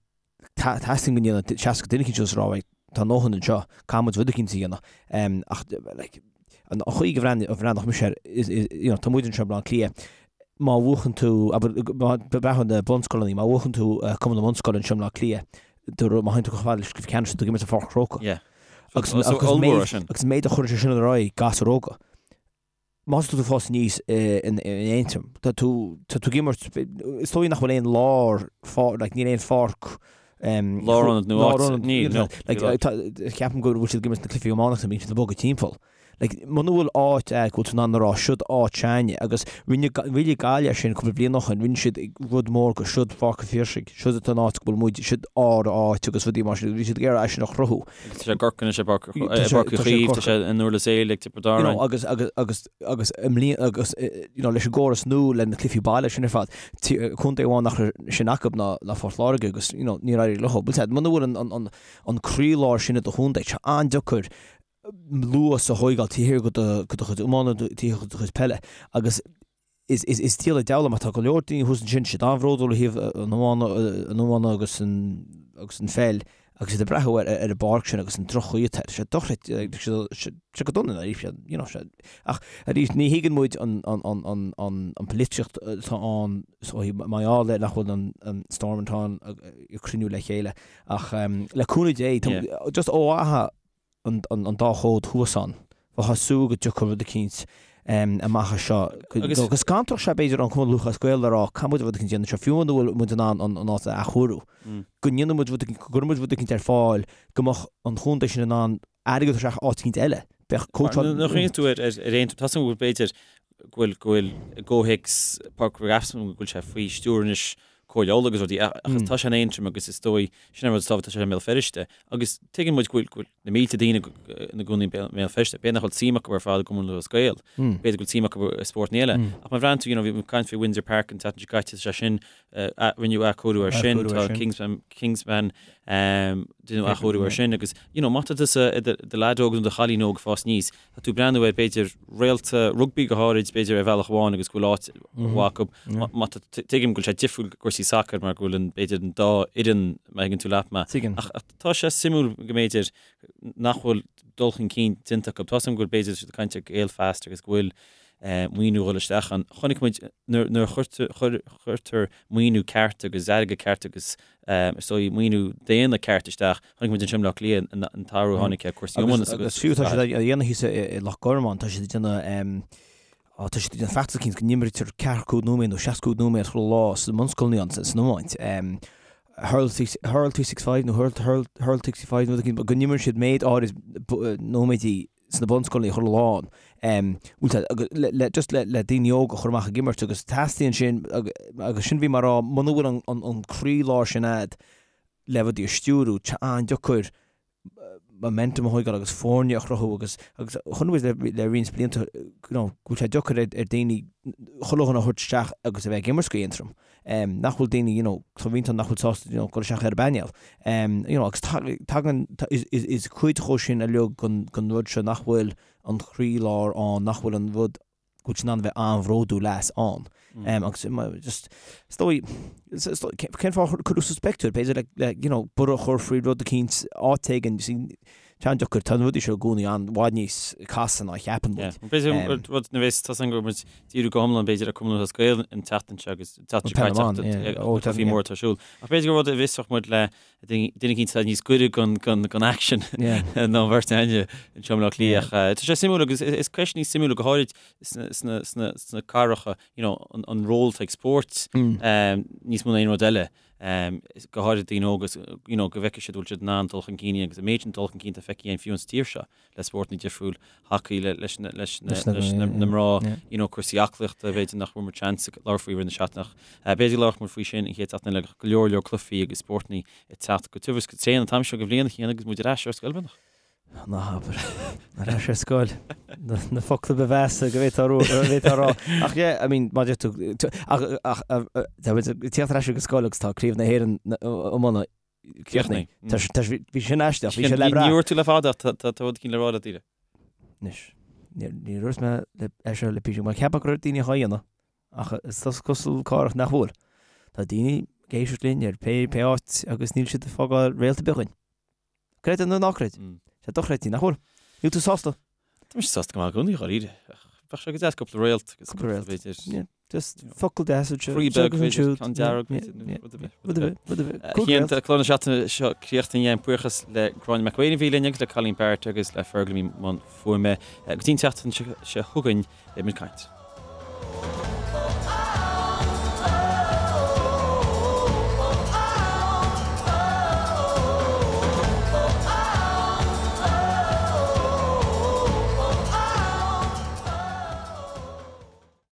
Teastaíonn go ndéanfadh 60 duine eicínt suas a rá right, tá a ndóthain anseo, caithfidh muid rud eicínt a dhéanamh. Ach like, an chaoi go bhreathnódh mise air, you know, tá muid anseo i mBleá Cliath, má bhuachann tú, abair, má breathnú ar na bunscoileanna, má bhuachann tú Cumann na mBunscoil anseo i mBleá Cliath, má théann tú chomh fada leis an gcluiche ceannais, tá tú ag imirt i Pháirc an Chrócaigh. Yeah. Agus an méid a chuireann sé sin ar aghaidh gasúir óga. Más tá tú ag fás aníos in Aontroim, tá tú, tá tú ag imirt, is dóigh nach bhfuil aon lár, like, níl aon pháirc Lárionad nó áit, níl, no. Ceapaim go bhfuil siad ag imirt na cluichí iománaíochta, bíonn siad ag bogadh timpeall. Like, muna bhfuil áit agat go bhfuil tú in ann a rá, siod áit s'againne, agus rinne, rinne Gaillimh é sin cúpla bliain ó shin, rinne siad rud mór go, siod Páirc an Phiarsaigh, siod an áit go bhfuil muid, siod ár áit agus rudaí mar sin, bhí siad ag iarraidh é sin a chruthú. Agus tá sé i gCorcaigh anois, i bPáirc, i bPáirc Uí Chaoimh, tá sé in Durlas Éile ag Tiobraid Árann. You know, agus, agus, agus, agus i mbliana, agus, you know, leis an gcóras nua, le na cluichí baile sin ar fad, contae amháin nach raibh sin acu ná, ná Phort Láirge agus, you know, níor éirigh leo. Bhuel, muna bhfuil an, an, an, an croílár sin i do chontae, tá sé an-deacair luas a thóigeáil taobh thiar de do chuid iomána, taobh thiar de do chuid peile agus is is diabhal an deabhal mar tá go leor daoine thuas ansin, siad an-bhródúil ó thaobh an iomána, an iomána agus an agus an pheil agus iad ag breathnú ar ar an bpáirc sin agus an droch-chaoi atá air. Sé dochreidte, sé go dona arís, you know, sé ach arís ní thuigeann muid an an an an an an polaitíocht atá ann so mar gheall ar nach bhfuil an an Stormont ann ag cruinniú le chéile ach le cúnamh Dé just ó mhaithe an dá chód thuas ann. Bheifeá ag súil go dtiocfadh rud eicínt amach as seo. Go scanródh sé b'fhéidir an Cumann Lúthchleas Gael le rá caithfidh muid rud eicínt a dhéanamh anseo, fiú muna bhfuil muid in ann an áit a athchóiriú. Go ndéanfaidh muid rud eicínt, go gcuirfidh muid rud eicínt ar fáil go mbeadh an chontae sin in ann airgead a thabhairt isteach áit eicínt eile. Bheadh cóitseáil. Nuair a chuimhníonn tú ar Aontroim, tá a fhios agam go bhfuil b'fhéidir go bhfuil go bhfuil i gcomhthéacs Páirc Mhic Easmainn go bhfuil sé faoi stiúir anois Comhairle Uladh agus rudaí ach tá sé in Aontroim agus is dóigh sin an rud is tábhachtaí tá sé i mBéal Feirste agus tuigeann muid go bhfuil go bhfuil na mílte daoine ina gcónaí i mBéal Feirste b'fhéidir nach bhfuil suim acu ar fad i gCumann Lúthchleas Gael b'fhéidir go bhfuil suim acu i spórtanna eile ach má bhreathnaíonn tú you know bhí muid ag caint faoi Windsor Park an tseachtain seo caite tá sé sin rinneadh athchóiriú air sin tá Kingspan Kingspan rinneadh athchóiriú air sin agus you know má tá tusa i do leaid óg nó do chailín óg ag fás aníos Tá tú ag breathnú ar, b'fhéidir, réalta rugbaí go háirid, b'fhéidir, ar bhealach amháin agus go bhfuil áit mhaith acu. Má tá, tuigim go bhfuil sé difriúil i gcúrsaí sacair mar go bhfuil an, b'fhéidir, an dá fhoireann, má thuigeann tú leat mé. Tuigim. Ach tá sé suimiúil go mb'fhéidir nach bhfuil dul chun cinn déanta acu. Tá a fhios agam go bhfuil, b'fhéidir, siad ag caint ar Gaelfast agus go bhfuil maoiniú ag dul isteach ann. Chonaic muid nuair a chuirtear maoiniú ceart agus airgead ceart agus is dóigh maoiniú daonna ceart isteach, Chonaic muid anseo i mBleá Cliath an t-athrú a tháinig ar cúrsaí iomána agus fiú tá siad á dhéanamh thíos i Loch Garman, tá siad ag déanamh tá siad ag déanamh feachtas eicínt go n-imrítear 45 nóiméad nó 65 nóiméad chuile lá sna bunscoileanna san iomáint. Hurl 365 nó Hurl Hurl 65 nó rud eicínt, go n-imríonn siad méid áirid nóiméidí sna bunscoileanna chuile lá le just le le daoine óga a chur amach ag imirt agus teastaíonn sin agus sin bhí mé ag rá muna bhfuil an an croílár sin a'd le rudaí a stiúrú, tá an-deacair momentum a thóigeáil agus foirne a chruthú agus agus chonaic muid le le roinnt blianta you know go bhfuil sé deacair ar ar daoine chuile dhuine a thabhairt isteach agus a bheith ag imirt go Aontroim. Nach bhfuil daoine you know tá roinnt ann nach bhfuil sásta you know dul isteach ar an bpainéal. You know agus tagann is is is cuid dhó sin uilig den den rud seo nach bhfuil an croílár ann, nach bhfuil an rud go bhfuil siad in ann a bheith an-bhródúil as ann. Agus just, is dóigh, cén fáth ar cuireadh suas pictiúr, b'fhéidir le, le, you know, borradh a chur faoi rud eicínt, áit éigin, you see, tá an-deacair, tá na rudaí seo i gcónaí i bhfad níos casta ná a cheapann muid. B'fhéidir rud na bheas, tá a fhios agam go bhfuil muid díriú go hiomlán b'fhéidir ar Cumann Lúthchleas Gael an tseachtain seo agus an tseachtain seo caite ach bhí mór atá ar siúl. Ach b'fhéidir gur rud a bhfiosródh muid le duine eicínt atá níos gaire don aicsean ná an bheirt againne anseo i mBleá Cliath. Tá sé suimiúil agus is ceisteanna suimiúla go háirid sna cathracha, you know, an ról atá ag spórt níos mó ná aon rud eile, go háirid daoine óga, you know, go bhfeicfidh siad go bhfuil siad in ann dul chun cinn agus an méid sin dul chun cinn atá feicthe againn fiú sa tír seo. le spórtanna difriúil, hacaí leis na mná, you know, cúrsaí aclaíochta, b'fhéidir nach bhfuair muid seans labhairt faoi i rith na seachtaine ach b'fhéidir go labharfadh muid faoi sin an chéad seachtain eile, go leor leor cluichí agus spórtanna ag teacht go tiubh is go tréan an t-am seo de bhliain a Chian agus muid ar ais ar scoil beagnach. Ná habair. Ar ais ar scoil. Na focla ba mheasa go bhféadfá a rá. Ach yeah, I mean, má deir tú, ach, ach, tá muid ag tíocht ar ais ag scoil agus tá Craobh na hÉireann iomána Críochnaithe. Bhí sin aisteach, bhí sé le brath. Ní dúirt tú le fada ach tá rud eicínt le rá leat Daoire. Anois, níor dhúirt mé é seo le píosa, mar ceapadh go raibh daoine á dhéanamh, ach is cosúil cárach nach bhfuil. Tá daoine ag éisteacht linn ar pé pé áit agus níl siad ag fágáil réalt ar bith dhúinn. Creid é nó ná creid. Sé dochreidte, nach bhfuil? Níl tú sásta? Tá mise sásta go maith i gcónaí, dháiríre. Ach bheadh sé go deas cúpla réalt agus cúpla réalt, b'fhéidir. Yeah, just focal deas anseo. Croí beag, b'fhéidir, ceann dearg, b'fhéidir, rud ar bith. Rud ar bith, rud ar bith. A Chian, tá clár na seachtaine seo críochnaithe againn. Buíochas le Gráinne McElwain a bhí linn agus le Colleen Barrett agus le Fergal a bhí i mbun fuaime. Go dtí an tseachtain seo chugainn, beidh muid ag caint.